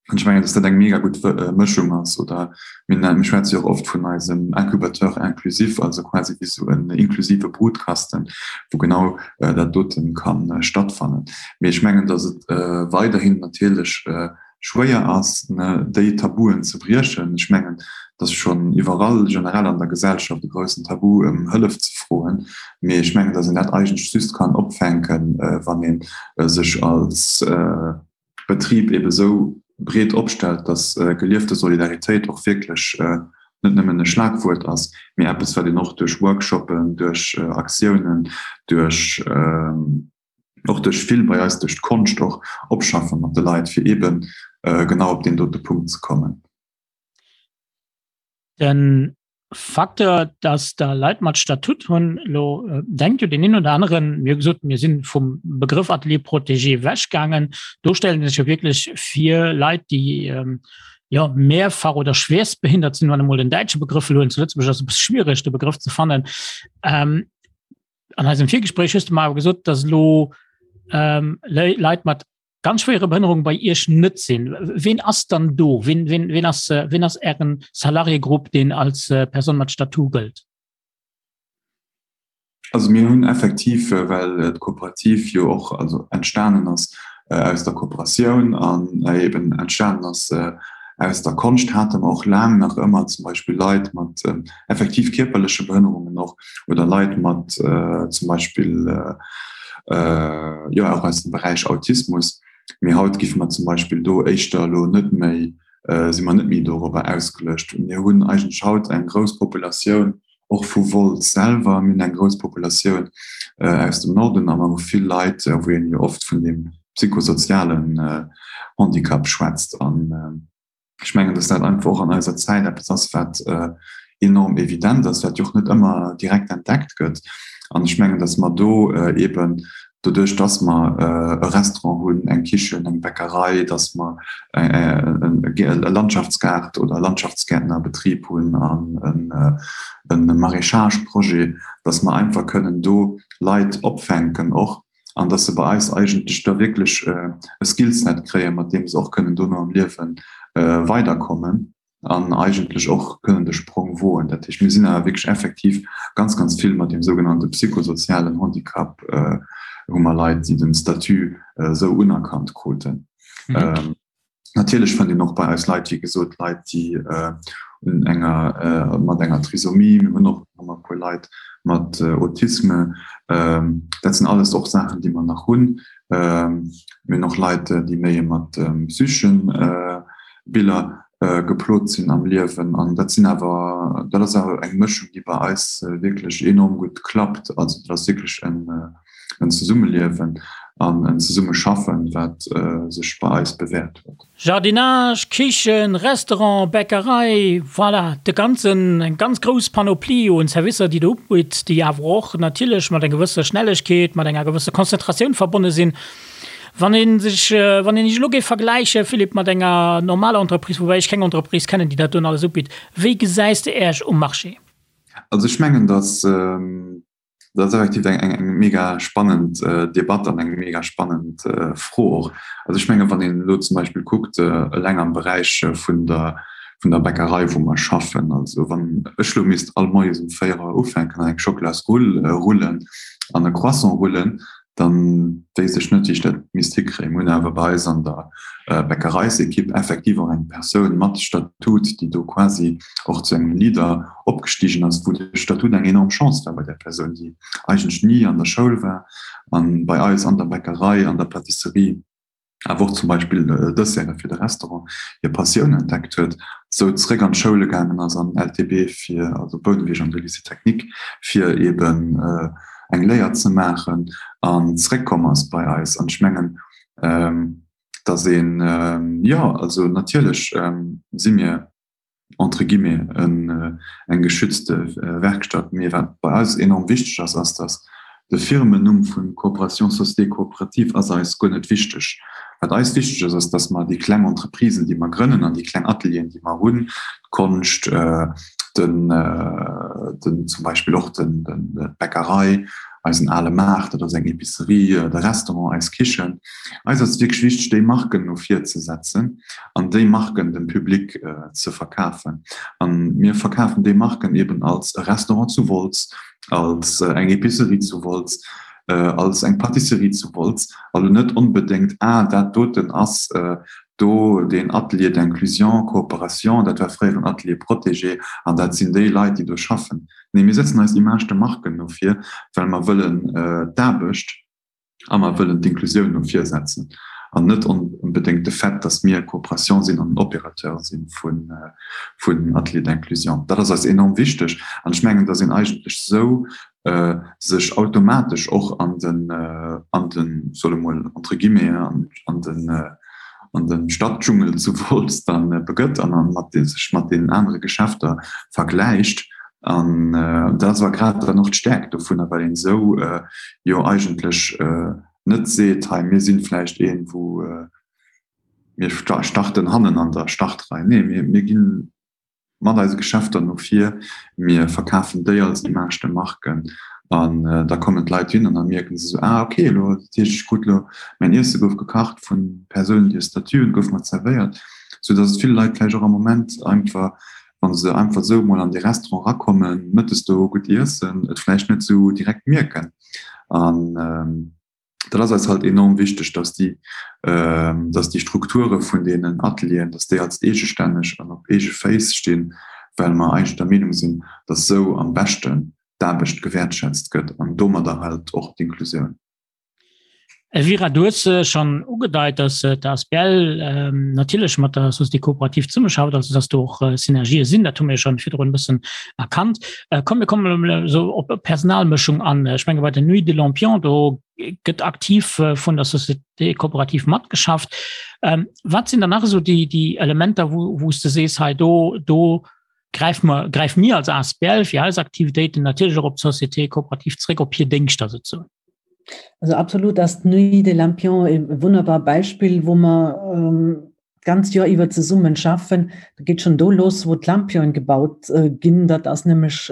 An ech mengen, dass dat eng mega gutt Mëschung ass. Oder mir mir schwätze jo och oft vun eisem Incubateur inclusif, also quasi wéi esou en inklusive Brutkasten, wou genau dat dote ka stattfannen. Mee ech mengen, dass et weiderhin natierlech schwéier ass, déi Tabuen ze briechen. Ech mengen, et ass schonn iwwerall generell an der Gesellschaft e groussen Tabu, ëm Hëllef ze froen. Mee ech mengen, datt een dat eigentlech just kann opfänken, wann ee sech als Betrib ebe sou breet opstellt, datt geliefte Solidaritéit och wierklech net nëmmen e Schlagwuert ass, mee eppes, wat een och duerch Workshoppen, duerch Aktiounen, duerch och duerch vill bei eis duerch d'Konscht och opschaffe mat de Leit, fir eeben genau op deen dote Punkt ze kommen. Den Facteur, dass der Leit mat Statut hunn, elo denkt jo deen een oder aneren, mir hu gesot, mir si vum Begrëff Atelier protégé ewechgaangen, do stellen sech jo wierklech vir Leit, déi jo mehrfach oder schwerstbehindert sinn, wann emol den däitsche Begrëff elo huelen, zu Lëtzebuerg ass e bësse schwiereg de Begrëff ze fannen. An eisem Virgespréich hues du mer awer gesot, dass elo ähm, Leit mat ganz schwere Behënnerung bei Iech net sinn. Ween ass dann do? Ween, ween, ween ass, äh, ween ass Ären Salariégrupp, deen als äh, Person mat Statut gëllt? Also mir hunn effektiv, äh, well äh, d'Kooperativ jo och also entstanen ass äh, aus der Kooperatioun an äh, eben entstanen ass äh, aus der Konscht, hate mer och laang nach ëmmer zum Beispill Leit mat äh, effektiv kierperleche Behënnerungen och oder Leit mat zum Beispill jo och aus dem Beräich Autismus. Mee haut giffe mer zum Beispill do éischter elo net méi, si mer net méi dorobber ausgeluecht. Mir hunn eigentlech haut eng grouss Populatioun och vu Wolz selwer, mir hunn eng grouss Populatioun aus dem Norden a mer hu vill Leit, wou een jo oft vun deem psychosozialen Handicap schwätzt. An Ech mengen, dass dat einfach och an eiser Zäit eppes ass, wat enorm evident ass, wat jo och net ëmmer direkt entdeckt gëtt. An ech mengen, dass mer do eeben doduerch, dass mer e Restaurant hunn, eng Kichen, eng Bäckerei, dass mer e Landschaftsgaart oder Landschaftsgäertnerbetrib hunn an e Maraîchage-Projet, dass mer einfach kënnen do Leit opfänken och, an dass se bei eis eigentlech da wierklech e Skillset kréien, mat deem se och kënnen dono am Liewe weiderkommen. an eigentlech och kënnen de Sprong woen. Dat heescht, mir sinn awer wierklech effektiv ganz, ganz vill mat deem sougenannte psychosozialen Handicap, hu mer Leit, déi den Statut esou unerkannt kruten. Natierlech fënnt een och bei eis Leit, wéi gesot, Leit, déi un enger, mat enger Trisomie, mir hunn och nach e puer Leit mat Autisme, dat sinn alles och Saachen, déi mer nach hunn. Mir hunn och Leit, déi méi mat psycheschen Biller geplot sinn am Liewen. An dat sinn awer, dat ass awer eng Mëschung, déi bei eis wierklech enorm gutt klappt. Also dat ass wierklech en en Zesummeliewen an en Zesummeschaffen, wat sech bei eis bewäert huet. Jardinage, Kichen, Restaurant, Bäckerei, voilà, de ganzen, eng ganz grouss Panoplie un Servicer, déi Der ubitt, déi awer och natierlech mat enger gewësser Schnellegkeet, mat enger gewësser Konzentratioun verbonne sinn. Wann ee sech, wann een Iech elo géif vergläiche, Philippe, mat enger normaler Entreprise, woubäi ech keng Entreprise kennen, déi dat doen alles ubitt, wéi gesäis de Äech um Marché? Also ech mengen, datt dat ass effektiv eng, eng, eng mega spannend Debatt an eng mega spannend Fro och. Also ech mengen, wann een elo zum Beispill kuckt, eleng am Beräich vun der, vun der Bäckerei, wou mer schaffen, also wann ech elo misst all Moies um 4 Auer ufänken an eng Schocklasrull rullen an e Croissant rullen, dann wéisst ech net, wéi ech dat misst hikréien. Mir hunn awer bei eis an der Bäckereisekipp effektiv och eng Persoun mat Statut, déi do quasi och zu engem Leader opgestigen ass, wou de Statut eng enorm Chance war bei där Persoun, déi eigentlech ni an der Schoul war an bei eis an der Bäckerei, an der Pâtisserie, awer och zum Beispill Desserte fir de Restaurant, hir Passioun entdeckt huet, sou zeréck an d'Schoule gaangen ass, an LTB fir, also Bouneweg an de Lycée technique, fir eeben eng Léier ze maachen an zeréckkomm ass bei eis. An ech mengen, datt een, jo, also natierlech si mir, entre guillemets, eng geschützte Werkstatt. Mee wat bei eis enorm wichteg ass, ass, datt de Firmennumm vu Coopération Société Coopérative ass eis guer net wichteg. Wat eis wichteg ass, ass, datt mer déi kleng Entreprisen, déi mer grënnen an déi kleng Atelieren, déi mer hunn, d'Konscht, den, den zum Beispill och den, d'Bäckerei, eisen ale Maart, dat ass eng Epicerie, de Restaurant, eis Kichen. Eis ass et wierklech wichteg, déi Marken no vir ze setzen an déi Marken dem Public ze verkafen. A mir verkafen déi Marken eben als e Restaurant zu Wolz, als eng Epicerie zu Wolz, als eng Pâtisserie zu Wolz, a lo net onbedéngt, ah dat doten ass do deen Atelier d'inclusion, coopération, dat war fréier en Atelier protégé an dat sinn déi Leit, déi do schaffen. Nee, mir setzen eis Image de marque no vir, well mer wëllen d'Aarbecht a mer wëllen d'Inklusioun no vir setzen an net onbedéngt de Fait, dass mir Coopération sinn an en Opérateur si vun Ateliers d'inclusion. Dat ass eis enorm wichteg an ech mengen, dass een eigentlech esou sech automatesch och an den, an den, solle mol entre guillemets, an den, an de Stadtdschungel zu Wolz dann begëtt an an mat sech mat deenen anere Geschäfter vergläicht. An dat ass awer grad dann och d'Stäerkt dovunner, well een esou jo eigentlech net seet, hei mir sinn vläicht een, wou mir starten hannen an der Startrei. Nee, mir ginn mat eise Geschäfter no vir, mir verkafen déi als Image de marque an da kommen d'Leit hin an da mierken se esou, ah okay, elo dat heescht ech krut elo mäin Iesse gouf gekacht vun Persounen déi e Statut hunn, gouf mer zerwéiert, sou datt et ville Leit vläicht och am Moment einfach, wa se einfach esou emol an dee Restaurant erakommen, mëttes do gutt iessen, et vläicht net esou direkt mierken an. Dat ass eis halt enorm wichteg, dass déi, dass déi Strukture vun deenen Atelieren, dass déi als eegestänneg an op eege Féiss stinn, well mer eigentlech der Meenung sinn, dass esou am beschten d'Aarbecht gewäertschätzt gëtt an domadder halt och d'Inklusioun. Elvira, du hues schonn ugedeit, dass d'ASBL natierlech mat der Société coopérative zesummeschafft, also dass do och Synergië sinn. Dat hu mir schonn virdrun e bëssen erkannt. Komm, mir kommen elo esou op Personalmëschung an. Ech menge bei der Nuit de Lampion, do gëtt aktiv vun der Société coopérative matgeschafft. Wat sinn dann nach esou déi, déi Elementer, wou, wou s de sees, hei do, do gräife mer, gräife mir als asbl fir eis Aktivitéiten natierlech och op d'Société coopérative zréck, op hir Déngschter souzesoen? Also absolut ass d'Nuit des Lampions e wunnerbar Beispill, wou mer d'ganzt Joer iwwer zesummen schaffen. Dat geet schonn do los, wou d'Lampionen gebaut ginn. Dat ass nämlech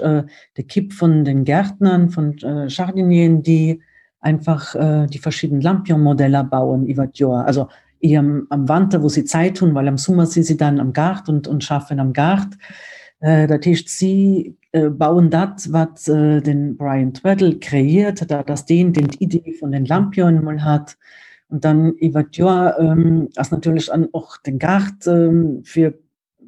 d'Ekipp vun den Gärtnern, vun Jardinieren, déi einfach déi verschidden Lampion-Modeller bauen iwwer d'Joer. Also. Eher am, am Wanter, wou si Zäit hunn, well am Summer si si dann am Gaart und, und schaffen am Gaart. Äh, dat heescht, si äh, bauen dat, wat äh, den Brian Tweddle kreiert, dat ass deen, deen d'Idee vun den Lampionen mol hat. Und dann iwwer d'Joer ähm, ass natierlech an och den Gaart ähm, fir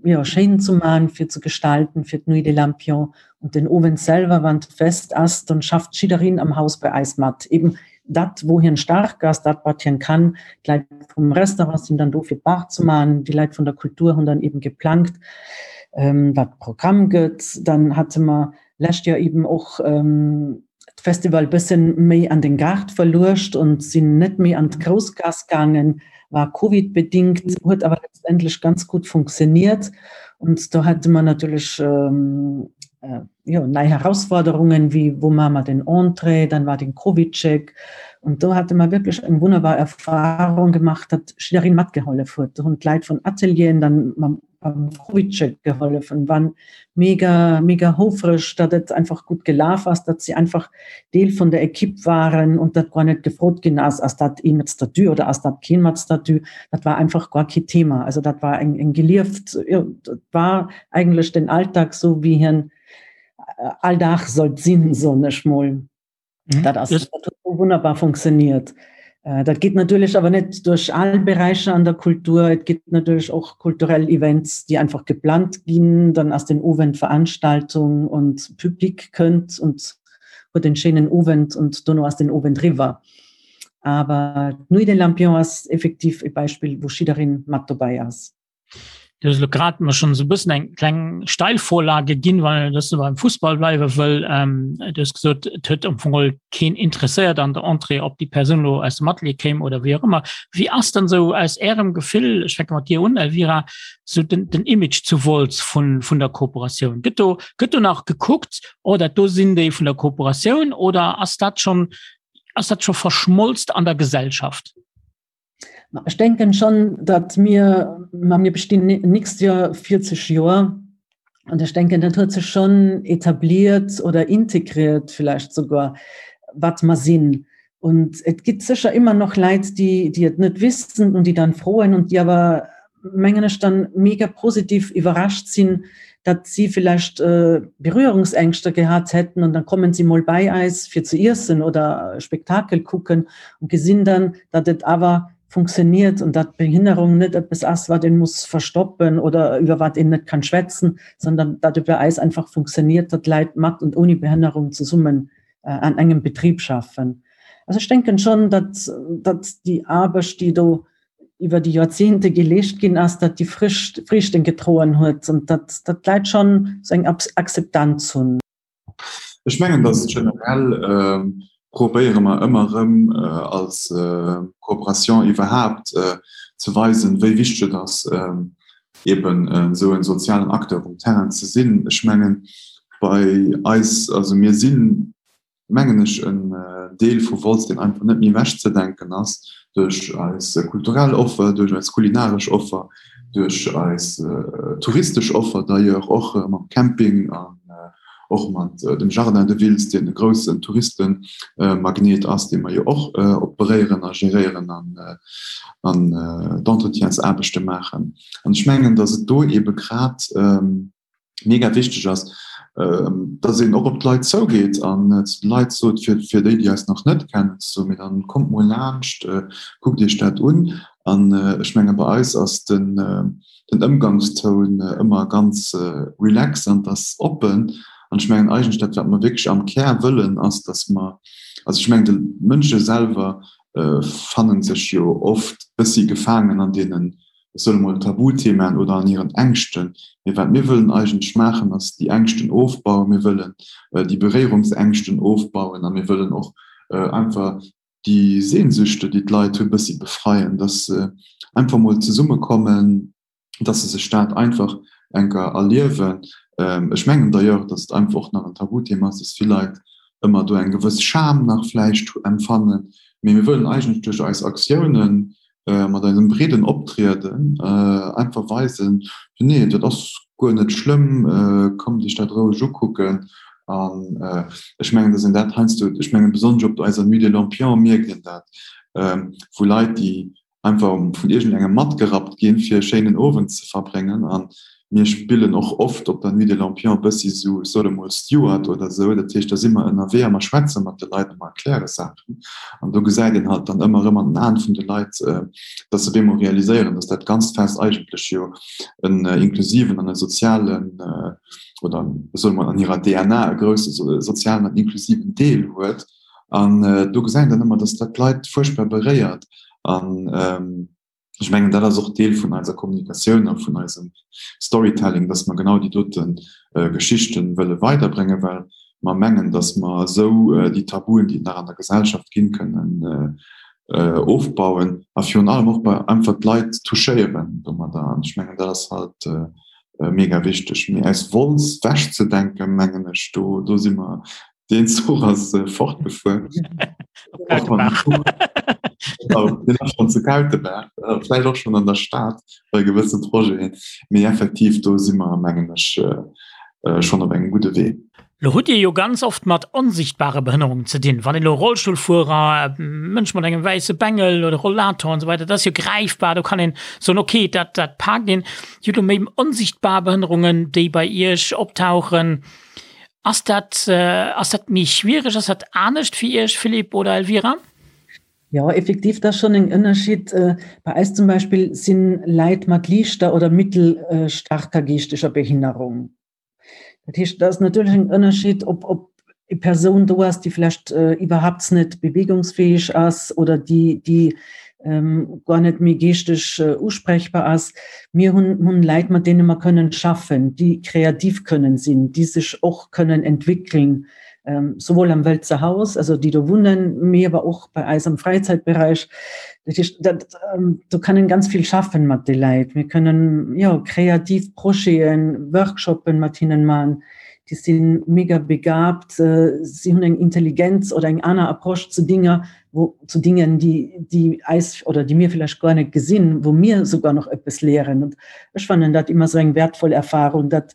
jo, schéin ze man, fir ze gestalten fir d'Nuit des Lampions und den Owend selwer, wann d'Fest ass, dann schafft jiddereen am Haus bei eis mat. Eben dat, wou hien staark ass, dat wat hien kann. D'Leit vum Restaurant sinn dann do fir d'Bar ze man, déi Leit vun der Kultur hunn dann eben geplangt, ähm, wat Programm gëtt. Dann hate mer lescht Joer eben och ähm, d'Festival bëssen méi an den Gaart verluecht und sinn net méi an d'Groussgaass gaangen, war Covid bedingt, huet awer letztendlech ganz gut funktioniert und do hate mer natierlech ähm, äh, jo, nei Herausforderungen, wéi wou maache mer den Entrée, dann war den Covid-Check und do hate mer wierklech eng wunnerbar Erfahrung gemaach, datt jiddereen matgehollef huet. Do hunn d'Leit vun Atelieren dann mam beim Covidcheck geholfen, waren mega mega houfreg, datt et einfach gutt gelaf ass, datt si einfach Deel vun der Equipe waren und dat guer net gefrot ginn ass, ass dat ee mat Statut oder ass dat keen mat Statut. Dat war einfach guer kee Thema. Also dat war eng eng gelieft, jo, dat war eigentlech den Alltag, sou wéi hien all Dag sollt sinn, soen ech mol. Mhm. Dat ass dat huet wunnerbar funktioniert. Äh, dat geht natürlich aber net durch all Bereiche an der Kultur. Et gibt natürlich och kulturell Events, die einfach geplant ginn, dann ass den Owend Veranstaltung und Publik kënnt und huet en schéinen Owend und dono ass den Owend riwwer. Aber d'Nuit des Lampions ass effektiv e Beispill, wou jiddereen mat dobäi ass. Du hues elo grad mer schonn esou e bëssen eng kleng Steilvorlage ginn, well dass du beim Fussball bleiwe wëll. Ähm, du hues gesot, et huet am Fong geholl keen interesséiert an der Entrée, ob déi Persoun elo aus dem Atelier kéim oder wéi och ëmmer. Wéi ass dann esou aus Ärem Gefill, ech fänke mat dir un, Elvira, esou den, den Image zu Wolz vun, vun der Kooperatioun? Gëtt do, gëtt do nach gekuckt, oh dat do sinn déi vun der Kooperatioun oder ass dat schonn, ass dat scho verschmolzt an der Gesellschaft? Ech denken schon, datt mir, ma mir bestinn nächst Joer 40 Joer an ech denken, dat huet sech schon etabliert oder integriert vielleicht sogar, wat mer sinn. Und et gibt sicher immer noch Leit, déi, déi et net wissen und déi dann froen und déi awer, mengen ech, dann mega positiv iwwerrascht sinn, datt si vielleicht äh, Berührungsängste gehat hätten und dann kommen sie mol bei eis fir ze iessen oder Spektakel kucken und gesinn dann, datt et awer funktioniert und datt Behinnerung net eppes ass, wat een muss verstoppen oder iwwer wat een net kann schwätzen, sondern datt et bei eis einfach funktioniert, datt Leit mat und ohne Behinnerung zesummen äh, an engem Betrieb schaffen. Also ech denken schon, datt, datt déi Aarbecht, déi do iwwer déi Joerzehnte geleescht ginn ass, datt déi Frücht, Friichten gedroen huet und datt, datt d'Leit schon sou eng Akzeptanz hunn. Ech mengen, datt generell probéiere mer ëmmer erëm als Kooperation iwwerhaapt ze weisen, wéi wichteg et ass, eben esou e sozialen Acteur um Terrain ze sinn. Ech mengen, bei eis, also mir sinn, mengen ech, en Deel vu Wolz, deen einfach net méi ewechzedenken ass, duerch eis kulturell Offer, duerch eis kulinaresch Offer, duerch eis touristesch Offer d'ailleurs och mam Camping an och mat dem Jardin de Wiltz, deen e groussen Touristenmagnet ass, dee mer jo och operéieren a geréieren an d'Entretiensaarbechte maachen. An ech mengen, datt et do eebe grad mega wichteg ass, dass een och op d'Leit zougeet an zu de Leit sot, fir, fir déi, déi eis nach net kennen, ze soen, mee dann kommt mol laanscht, kuckt iech dat un. An ech menge bei eis ass den, den Ëmgangstoun ëmmer ganz relax an 't ass oppen. An ech mengen eigentlech dat, wat mer wierklech am Kär wëllen, ass, dass mer, also ech mengen de Mënsche selwer fannen sech jo oft bëssi gefaangen an deenen ech soen emol, Tabuthemaen oder an hiren Ängschten. Mee wat mir wëllen eigentlech maachen, ass déi Ängschten ofbauen. Mir wëllen déi Beréierungsängschten ofbauen a mir wëllen och einfach déi Sehnsüchte, déi d'Leit hunn, e bëssi befreien, dass se einfach mol zesummekommen, dass se sech dat einfach enker erliewen. Ech mengen d'ailleurs, dass et einfach och nach en Tabuthema ass, dass vill Leit ëmmer do eng gewëss Scham nach vläicht empfannen. Mee mir wëllen eigentlech duerch eis Aktiounen mat eisem breeden Optrieden einfach weisen, nee, dat ass guer net schlëmm, kommt iech dat roueg ukucken. An ech mengen, datt een dat heiansdo, ech mengen besonnesch op eiser Nuit des Lampions mierkt een dat, wou Leit, déi. einfach vun iergendengem matgerappt ginn, fir e schéinen Owend ze verbréngen. A mir spillen och oft op der Nuit des Lampions e bëssi sou, ech sot emol Steward oder sou. Dat heescht, da si mer ënnerwee a mer schwätze mat de Leit a mer erkläre Saachen. An do gesäit een halt dann ëmmer erëm an den Aen vun de Leit, dass se op eemol realiséieren, dass dat ganzt Fest eigentlech jo en inklusiven an e sozialen, oder ech soe mol an hirer DNA e grousse sozialen an inklusiven Deel huet. An do gesäit een dann ëmmer, dass dat d'Leit fuerchtbar beréiert. An ech mengen, dat ass och Deel vun eiser Kommunikatioun a vun eisem Storytelling, dass mer genau déi dote Geschichte wëlle weiderbréngen, well mer mengen, dass mer esou déi Tabuen, déi et nach an der Gesellschaft ginn, kënnen ofbauen a virun allem och bei einfach d'Leit touchéieren domadder. An ech mengen, dat ass halt mega wichteg. Mee aus Wolz wechzedenken, mengen ech, do, do si mer Deen Zuch ass fortgefuer. Deen ass schonn zu Kautebaach, vläicht och schonn an der Stad bei gewësse Projeten. Mee effektiv, do si mer, mengen ech, schonn op engem gudde Wee. Lo hutt Dir jo ganz oft mat onsichtbare Behënnerungen ze dinn. Wann een elo Rollstullfuerer, Mënsch mat engem wäisse Bengel oder Rollator an esou weider, dat ass jo gräifbar, do kann een soen, okay, dat, dat paakt een. Dir hutt elo méi onsichtbar Behënnerungen, déi bei Iech optauchen. Ass dat, ass dat méi schwiereg, ass dat anescht fir Iech, Philippe oder Elvira? Jo, effektiv, dat ass schonn en Ënnerschied. Bei eis zum Beispill sinn Leit mat liichter oder mittelstaarker geeschteger Behinnerung. Dat heescht, dat ass natierlech en Ënnerschied, ob, ob e Persoun do ass, déi vlächtt iwwerhaapt net bewegungsfäeg ass oder déi, déi guer net méi geeschteg usprechbar ass. Mir hunn hunn Leit, mat deene mer kënnen schaffen, déi kreativ kënnen sinn, déi sech och kënnen entwickeln, souwuel am Wëlzer Haus, also déi do wunnen, mee awer och bei eis am Fräizäitberäich. Dat heescht, dat, do kann een ganz vill schaffen mat de Leit. Mir kënnen, jo, kreativ Projeten, Workshoppen mat hinnen man. Déi si mega begabt, si hunn eng Intelligenz oder eng aner Approche zu Dinger, wo zu Dingen, déi, déi eis oder déi mir vielleicht gar net gesinn, wo mir sogar noch eppes lehren. Und ech fannen dat immer so eng wertvoll Erfahrung, dat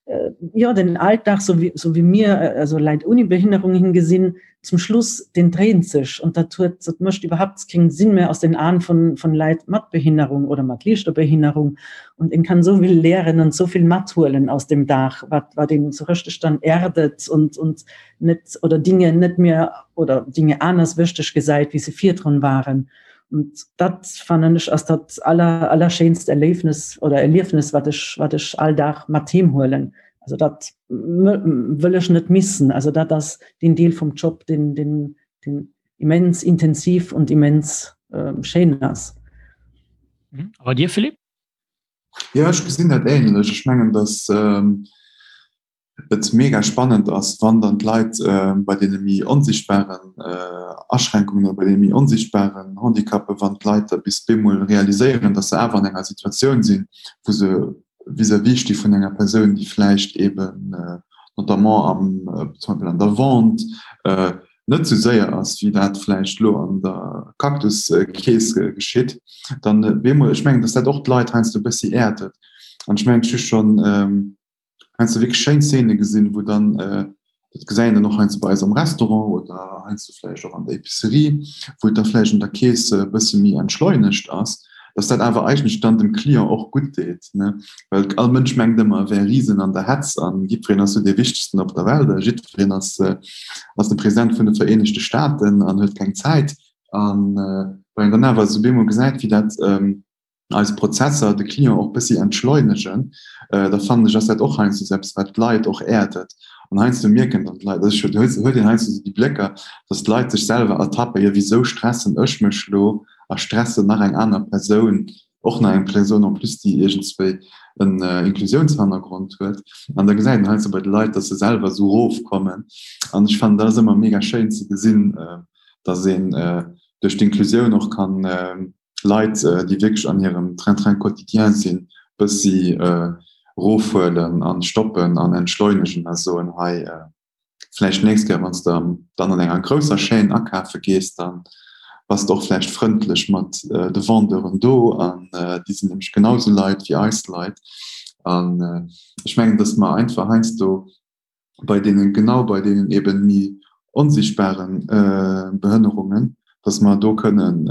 äh, ja, den Alltag, so wie, so wie mir äh, also Leit ohne Behinderung hingesinn, zum Schluss den dreht sich und dat huet, dat mécht überhaupt keinen Sinn mehr aus den Aen von, von Leit mat Behinderung oder mat liichter Behinderung und en kann so viel lehren und so viel mathuelen aus dem Dag, wat, wat een so richtig dann erdet und, und net oder Dinge net mehr oder Dinge anders wichteg gesäit, wéi se virdrun waren. Und dat fannen ech ass dat aller allerschéinst Erléifnes oder Erliefnis, wat ech wat ech all Dag mat heem huelen. Also dat wëll ech net missen. Also dat ass den Deel vum Job, den den den immens intensiv und immens äh, schéin ass. Mhm. A bei dir Philippe? Ja, ech gesinn dat ähnlech. Ech mengen, dass ähm, et mega spannend ass, wann dann d'Leit bei deene méi onsichtbaren Aschränkungen oder bei deene méi onsichtbaren Handicapen, wann d'Leit da bis bemol realiséieren, dass se awer an enger Situatioun sinn, wou se vis-à-vis sti vun enger Persoun, déi vläicht eben notamment am, zum Beispill an der Vente, net esou séier ass, wéi dat vläicht elo an der Cactus-Kees geschitt, dann bemol, ech mengen, dass dat och d'Leit heiansdo e bëssi äerdet. An ech mengen, ech hu schonn heiansdo wierklech schéin Szene gesinn, wou dann, dat gesäit een dann och heiansdo bei eis am Restaurant oder heiansdo vläicht och an der Epicerie, wou et da vläicht an der Keess e bësse méi entschleunegt ass, dass dat awer eigentlech dann dem Client och gutt deet, ne? Well all Mënsch mengt ëmmer, e wär Risen an der Hetz a jiddwereen ass sou dee Wichtegsten op der Welt a jiddwereen ass, ass de President vun de Vereenegte Staaten an huet keng Zäit. An wann een dann awer esou bemol gesäit, wéi dat, eis Prozesser de Client och bëssi entschleunegen, da fannen ech ass dat och heiansdo esou eppes wat d'Leit och äerdet. An heiansdo mierken dann d'Leit, also ech huet huet een heiansdo esou déi Blécker, datt d'Leit sech selwer ertappen, jo wisou stressen ech mech lo a stressen nach eng aner Persoun, och nach eng Persoun en plus déi iergendswéi en Inklusiounshannergrond huet. An da gesäit een heiansdo bei de Leit, datt se selwer esou erofkommen. An ech fannen dat ass ëmmer mega schéin ze gesinn, datt een duerch d'Inklusioun och kann Leit, déi wierklech an hirem Train-train quotidien sinn, bëssi erofhuelen an stoppen an entschleunegen a soen, hei, vläicht d'nächst Kéier, wann s de dann an enger grousser Chaîne akafe gees, da bass de och vläicht frëndlech mat de Vendeuren do an déi sinn nämlech genau esou Leit wéi eis Leit. An ech mengen, datt mer einfach heiansdo bei deenen, genau bei deenen eben méi onsichtbaren Behënnerungen, dass mer do kënnen.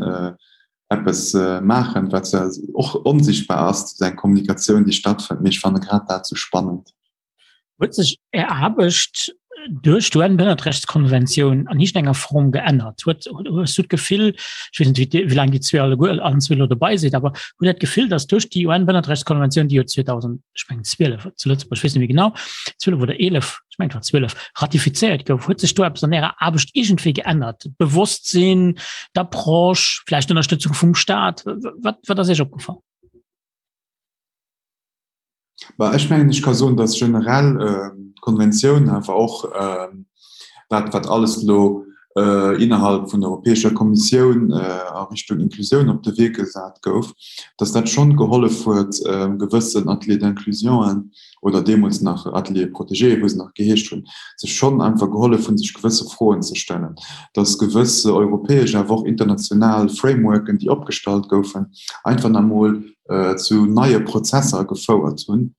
eppes maachen, wat zwar och onsichtbar ass, eng Kommunikatioun, déi stattfënnt, mee ech fanne grad dat sou spannend. Huet sech Är Aarbecht duerch d'UN-Bënnertrechtskonventioun an iergendenger Form geännert? Huet, hues du d'Gefill, ech weess net, wéi, wéi laang Dir zwee alleguer, allen zwee elo dobei sidd, awer hutt Dir d'Gefill, datt duerch déi UN-Bënnertrechtskonventioun, déi jo 2000, ech mengen 12 zu Lëtzebuerg, ech weess net méi genau, 12 oder 11, ech mengen et war 12, ratifizéiert gouf, huet sech do eppes an Ärer Aarbecht iergendwéi geännert? D'Bewosstsinn, d'Approche, vläicht d'Ënnerstëtzung vum Staat? Wat, wat ass Iech opgefall? Bah, ech mengen, ech ka soen, dass generell d'Konventioun awer och dat, wat alles elo innerhalb vun der Europäescher Kommissioun a Richtung Inklusioun op de Wee gesat gouf, dass dat schonn gehollef huet, gewëssen Ateliers d'inclusionen oder deemools nach Ateliers protégés, wou se nach geheescht hunn, sech schonn einfach gehollef hunn, sech gewësse Froen ze stellen, dass gewësse europäesch awer och international Frameworken, déi opgestallt goufen, einfach nach emol zu neie Prozesser gefouert hunn,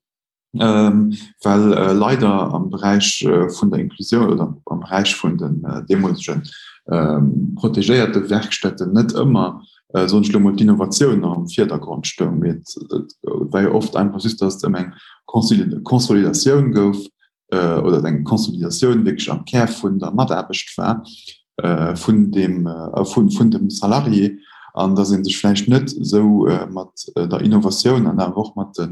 well leider am Beräich vun der Inklusioun oder am Beräich vun den deemolege protegéierte Werkstätten net ëmmer, soen ech elo mol, d'Innovatioun am Virdergrond stoung. Mee et war jo oft einfach just, datt et ëm eng Consolidatioun gouf oder eng Consolidatioun wierklech am Kär vun der Mataarbecht war, vun dem, vun dem Salarié, an dass ee sech vläicht net esou mat der Innovatioun an awer och mat de,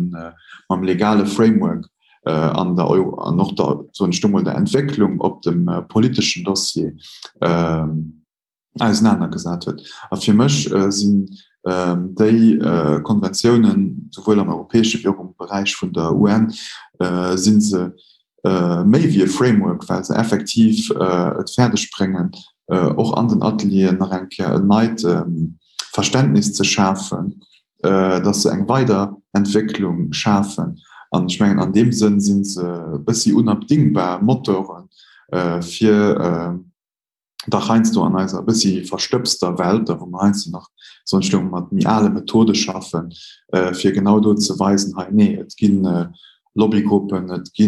mam legale Framework an der, an och der, soen ech do mol, der Entwécklung op dem politeschen Dossier ausenanergesat huet. A fir mech sinn déi Konventiounen, souwuel am europäesche wéi och am Beräich vun der UN, si se méi wéi e Framework, well se effektiv et fäerdeg bréngen, och an den Atelieren nach eng Kéier en neit Verständnis ze schafen, dass se eng Weiderentwécklung schafen. An ech mengen, an deem Sënn si se e bëssi unabdingbar Motoren, fir dach heiansdo an eiser e bëssi verstëbster Welt, da wou mer heiansdo nach soen ech elo mat méi ale Methode schaffen, fir genau do ze weisen, hei nee, et gi Lobbygruppen, et gi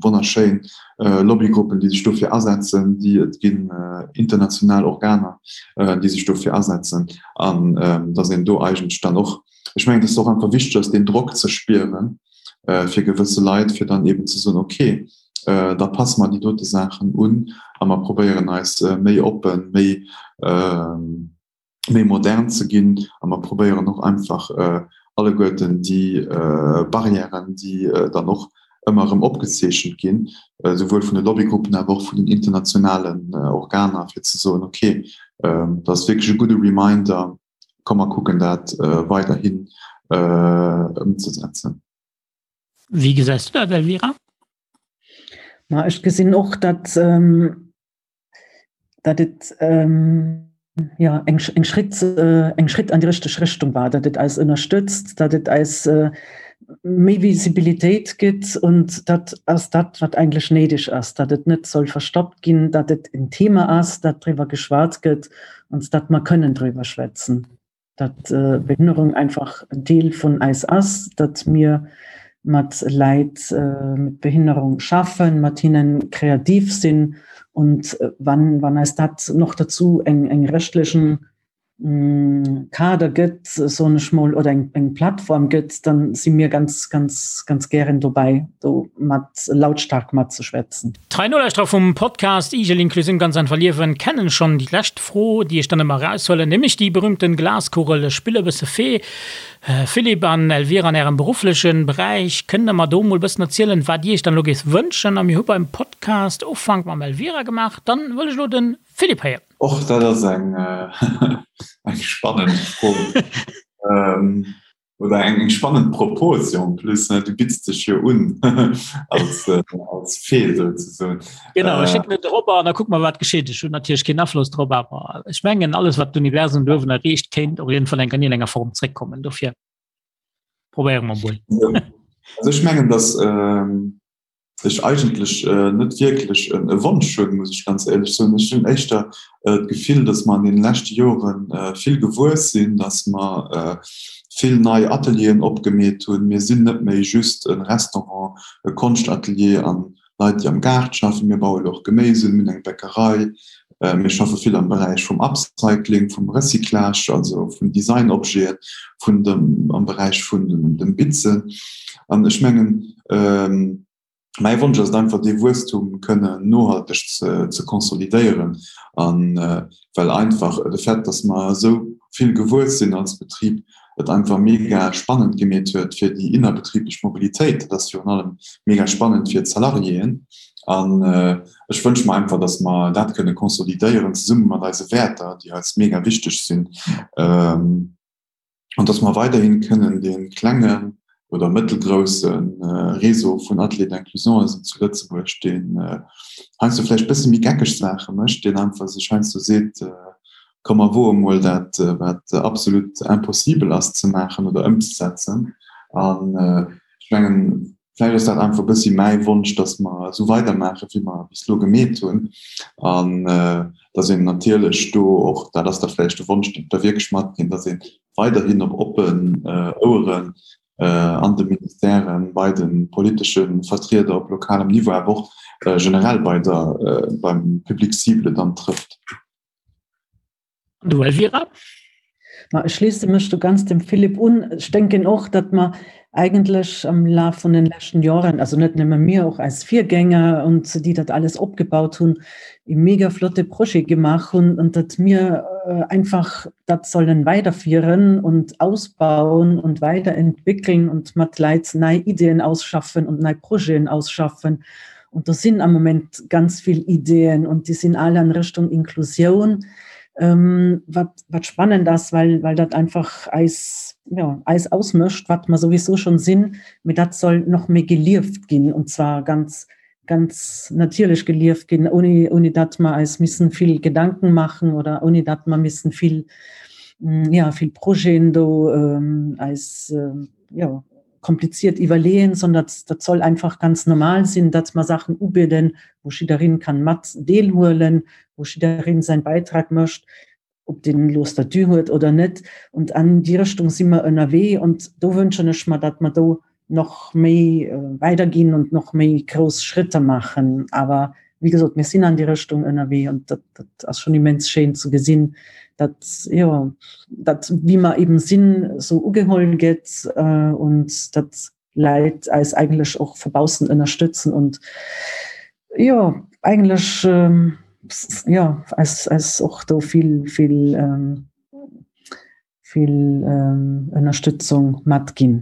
wonnerschéin Lobbygruppen, déi sech dofir asetzen, déi et ginn international Organer, déi sech dofir asetzen an datt een do eigentlech dann och, ech mengen, et ass och einfach wichteg ass, deen Drock ze spieren fir gewësse Leit, fir dann eeben ze soen, okay, da passe mer déi dote Saachen un a mer probéieren eis méi oppen, méi, méi modern ze ginn a mer probéieren och einfach alleguerten déi Barrièren, déi dann och ëmmer erëm opgezeechent ginn, souwuel vun de Lobbygruppen, awer och vun den internationalen Organer, fir ze soen, okay, dat ass wierklech e gudde Reminder, komm mer kucken dat weiderhin ëmzesetzen. Wéi gesäis du dat, Elvira? Ma ech gesinn och, datt ähm, datt et ähm, ja, eng, eng, Schritt, äh, eng Schritt an die richteg Richtung war, datt et eis ënnerstëtzt, datt et eis äh, méi Visibilitéit gëtt und dat ass dat, wat eigentlech néideg ass, datt et net soll verstoppt ginn, datt et en Thema ass, dat driwwer geschwat gëtt und datt mer kënnen driwwer schwätzen. datt Behinnerung einfach en Deel vun eis ass, datt mir mat Leit mat Behinnerung schaffen, mat hinnen kreativ sinn und wann, wann eis dat noch dazu eng, eng rechtlichen Kader gëtt, soen ech mol, oder eng, eng Plattform gëtt, dann si mir ganz, ganz, ganz gären dobäi, do mat lautstark matzeschwätzen. Trei Nolauschterer vum Podcast Igel Inklusioun ganz einfach liewen kennen schonn déi lescht Fro, déi ech dann ëmmer eraushuelen, nämlech déi berühmten Glaskugel. Ech spille e bësse Fee. Philippe an Elvira, an ärem berufflechen Beräich, kënnt der mer do mol bëssen erzielen, wat dir iech dann elo géift wënschen? A mir hu beim Podcast Ufank mam Elvira gemaach, dann wëll ech elo den Philippe héieren. Och dat ass eng spannend Fro. Oder eng eng spannend Propos jo en plus, ne? Du bitts dech jo un als, äh, als Fee souzesoen. Genau, ech schécken et erop an da kucke mer, wat geschitt. Ech hunn natierlech keen Afloss drop, awer ech mengen, alles, wat d'Universum do uewen erreecht, kéint och iergendwann eng an iergendenger Form zréckkommen. Dofir probéiere mer mol. Also ech mengen, dass ähm, ech eigentlech net wierklech e Wonsch hunn, muss ech ganz éierlech soen. Ech hunn éischter d'Gefill, datt mer an deene leschte Jore vill gewuess sinn, datt mer vill nei Atelieren opgemeet hunn. Mir sinn net méi just e Restaurant, e Konschtatelier an. Leit, déi am Gaart schaffen, mir baue lo och Geméis un, mir hunn eng Bäckerei, mir schaffe vill am Beräich vum Upcycling, vum Recyclage, also vun Designobjeten, vun dem, am Beräich vun dem Bitzen. An ech mengen, Mäi Wonsch ass et einfach, dee Wuesstum kënnen nohalteg ze konsolidéieren. A well einfach de Fait, dass mer esou vill gewuess sinn als Betrib, et einfach mega spannend gemeet huet fir déi innerbetriblech Mobilitéit. Dat ass virun allem mega spannend fir d'Salariéen. An ech wënsche mer einfach, dass mer dat kënne konsolidéieren, zesumme mat eise Wäerter, déi eis mega wichteg sinn. An dass mer weiderhi kënnen dee klengen oder mëttelgrousse Réseau vun Ateliers d'inclusion zu Lëtzebuerg, deen heiansdo vläicht e bësse méi geckeg Saache mécht, deen einfach sech heiansdo seet, Komm mer woe mol dat, wat absolut impossibel ass ze maachen oder ëmzesetzen. An ech mengen, Vläicht ass dat einfach e bëssi mäi Wonsch, dass mer esou weidermaachen, wéi mer bis elo gemeet hunn. An dass een natierlech do och, dat ass da vläicht de Wonsch, deen ech da wierklech matginn, dass ee weiderhin op oppen Oueren an de Ministèren, bei de politesche Vertrieder op lokalem Niveau, awer och generell bei der, beim Public cible dann trëfft. An du Elvira? Ma ech schliesse mech do ganz dem Philippe un. Ech denken och, datt mer eigentlech am Laf vun den leschten Joren, also net nëmme mir, och eis Virgänger und déi dat alles opgebaut hunn, e mega flotte Projet gemaach hunn und datt mir einfach dat sollen weiderfieren und ausbauen und weiderentwickeln und mat Leit nei Ideen ausschaffen und nei Projeten ausschaffen. Und do sinn am Moment ganz vill Ideen und déi sinn all an Richtung Inklusioun, ähm, wat, wat spannend ass, well, well dat einfach eis, ja, eis ausmécht, wat mer souwisou schon sinn, mee dat soll noch méi gelieft ginn und zwar ganz, ganz natierlech gelieft ginn, ohne, ohne dat mer eis missen vill Gedanken machen oder ohne dat mer missen vill, ja, vill Projeten do ähm, eis, ähm, ja, kompliziert iwwerleeën, sondern dat soll einfach ganz normal sinn, datt mer Saachen ubidden, wou jiddereen kann mat deelhuelen, wou jiddereen säin Beitrag mécht, ob deen elo Statut huet oder net. Und an déi Richtung si mer ënnerwee und do wënschen ech mer, datt mer do nach méi weiderginn und nach méi grouss Schritter maachen. Awer wéi gesot, mir sinn an déi Richtung ënnerwee und dat, dat ass schon immens schéin ze gesinn, dat, jo, dat wéi mer eben sinn, esou ugeholl gëtt und dat Leit eis eigentlech och vu baussen ënnerstëtzen und jo, eigentlech, jo, eis, eis och do vill, vill, vill Ënnerstëtzung matginn.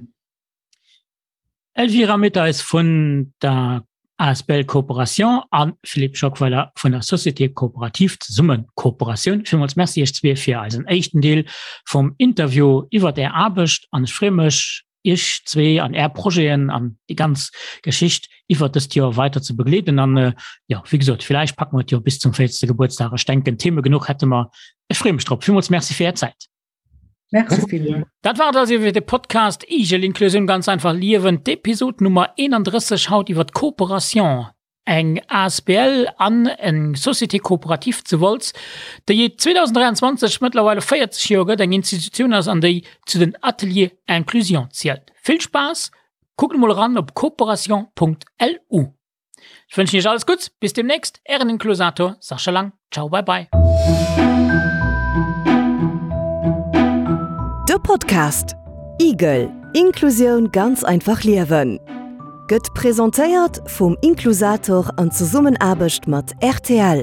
Elvira Mitteis vun der asbl Coopération a Philippe Schockweiler vun der Société Coopérative Zesummen Kooperatioun. Villmools Merci Iech zwee fir eisen éischten Deel vum Interview iwwert Är Aarbecht an ech freeë mech, Iech zwee an Är Projeten an déi ganz Geschicht iwwert dëst Joer weider ze begleeden. An jo, wéi gesot, villäicht packe mer et jo bis zum 40. Gebuertsdag. Ech denken, Theme genuch hätte mer. Ech freeë mech drop. Villmools Merci fir Är Zäit. Merci villmools. Dat war et also fir de Podcast Igel Inklusioun ganz einfach liewen, d'Episod Nummer 31 haut iwwer d'Cooperation, eng asbl an eng Société coopérative zu Wolz, déi et 2023 mëttlerweile 40 Joer gëtt, eng Institutioun ass an déi zu den Ateliers Inclusion zielt. Vill Spaass, kuckt emol eran op cooperation.lu. Ech wënschen iech alles Gutts, bis demnächst, ären Inklusator Sascha Lang. Ciao, bye bye. De Podcast Igel, Inklusioun ganz einfach liewen gëtt presentéiert vum Inklusator an Zesummenaarbecht mat rtl.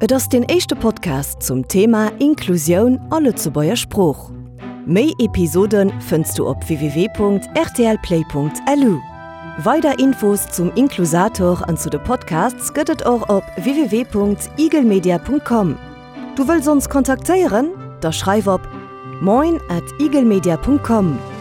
Et ass deen éischte Podcast zum Thema Inklusioun a Lëtzebuerger Sprooch. Méi Episode fënns du op www.rtlplay.lu. Weider Infos zum Inklusator an zu de Podcasts gëtt et och op www.igelmedia.com. Du wëlls ons kontaktéieren? Da schreif op moin at igelmedia.com.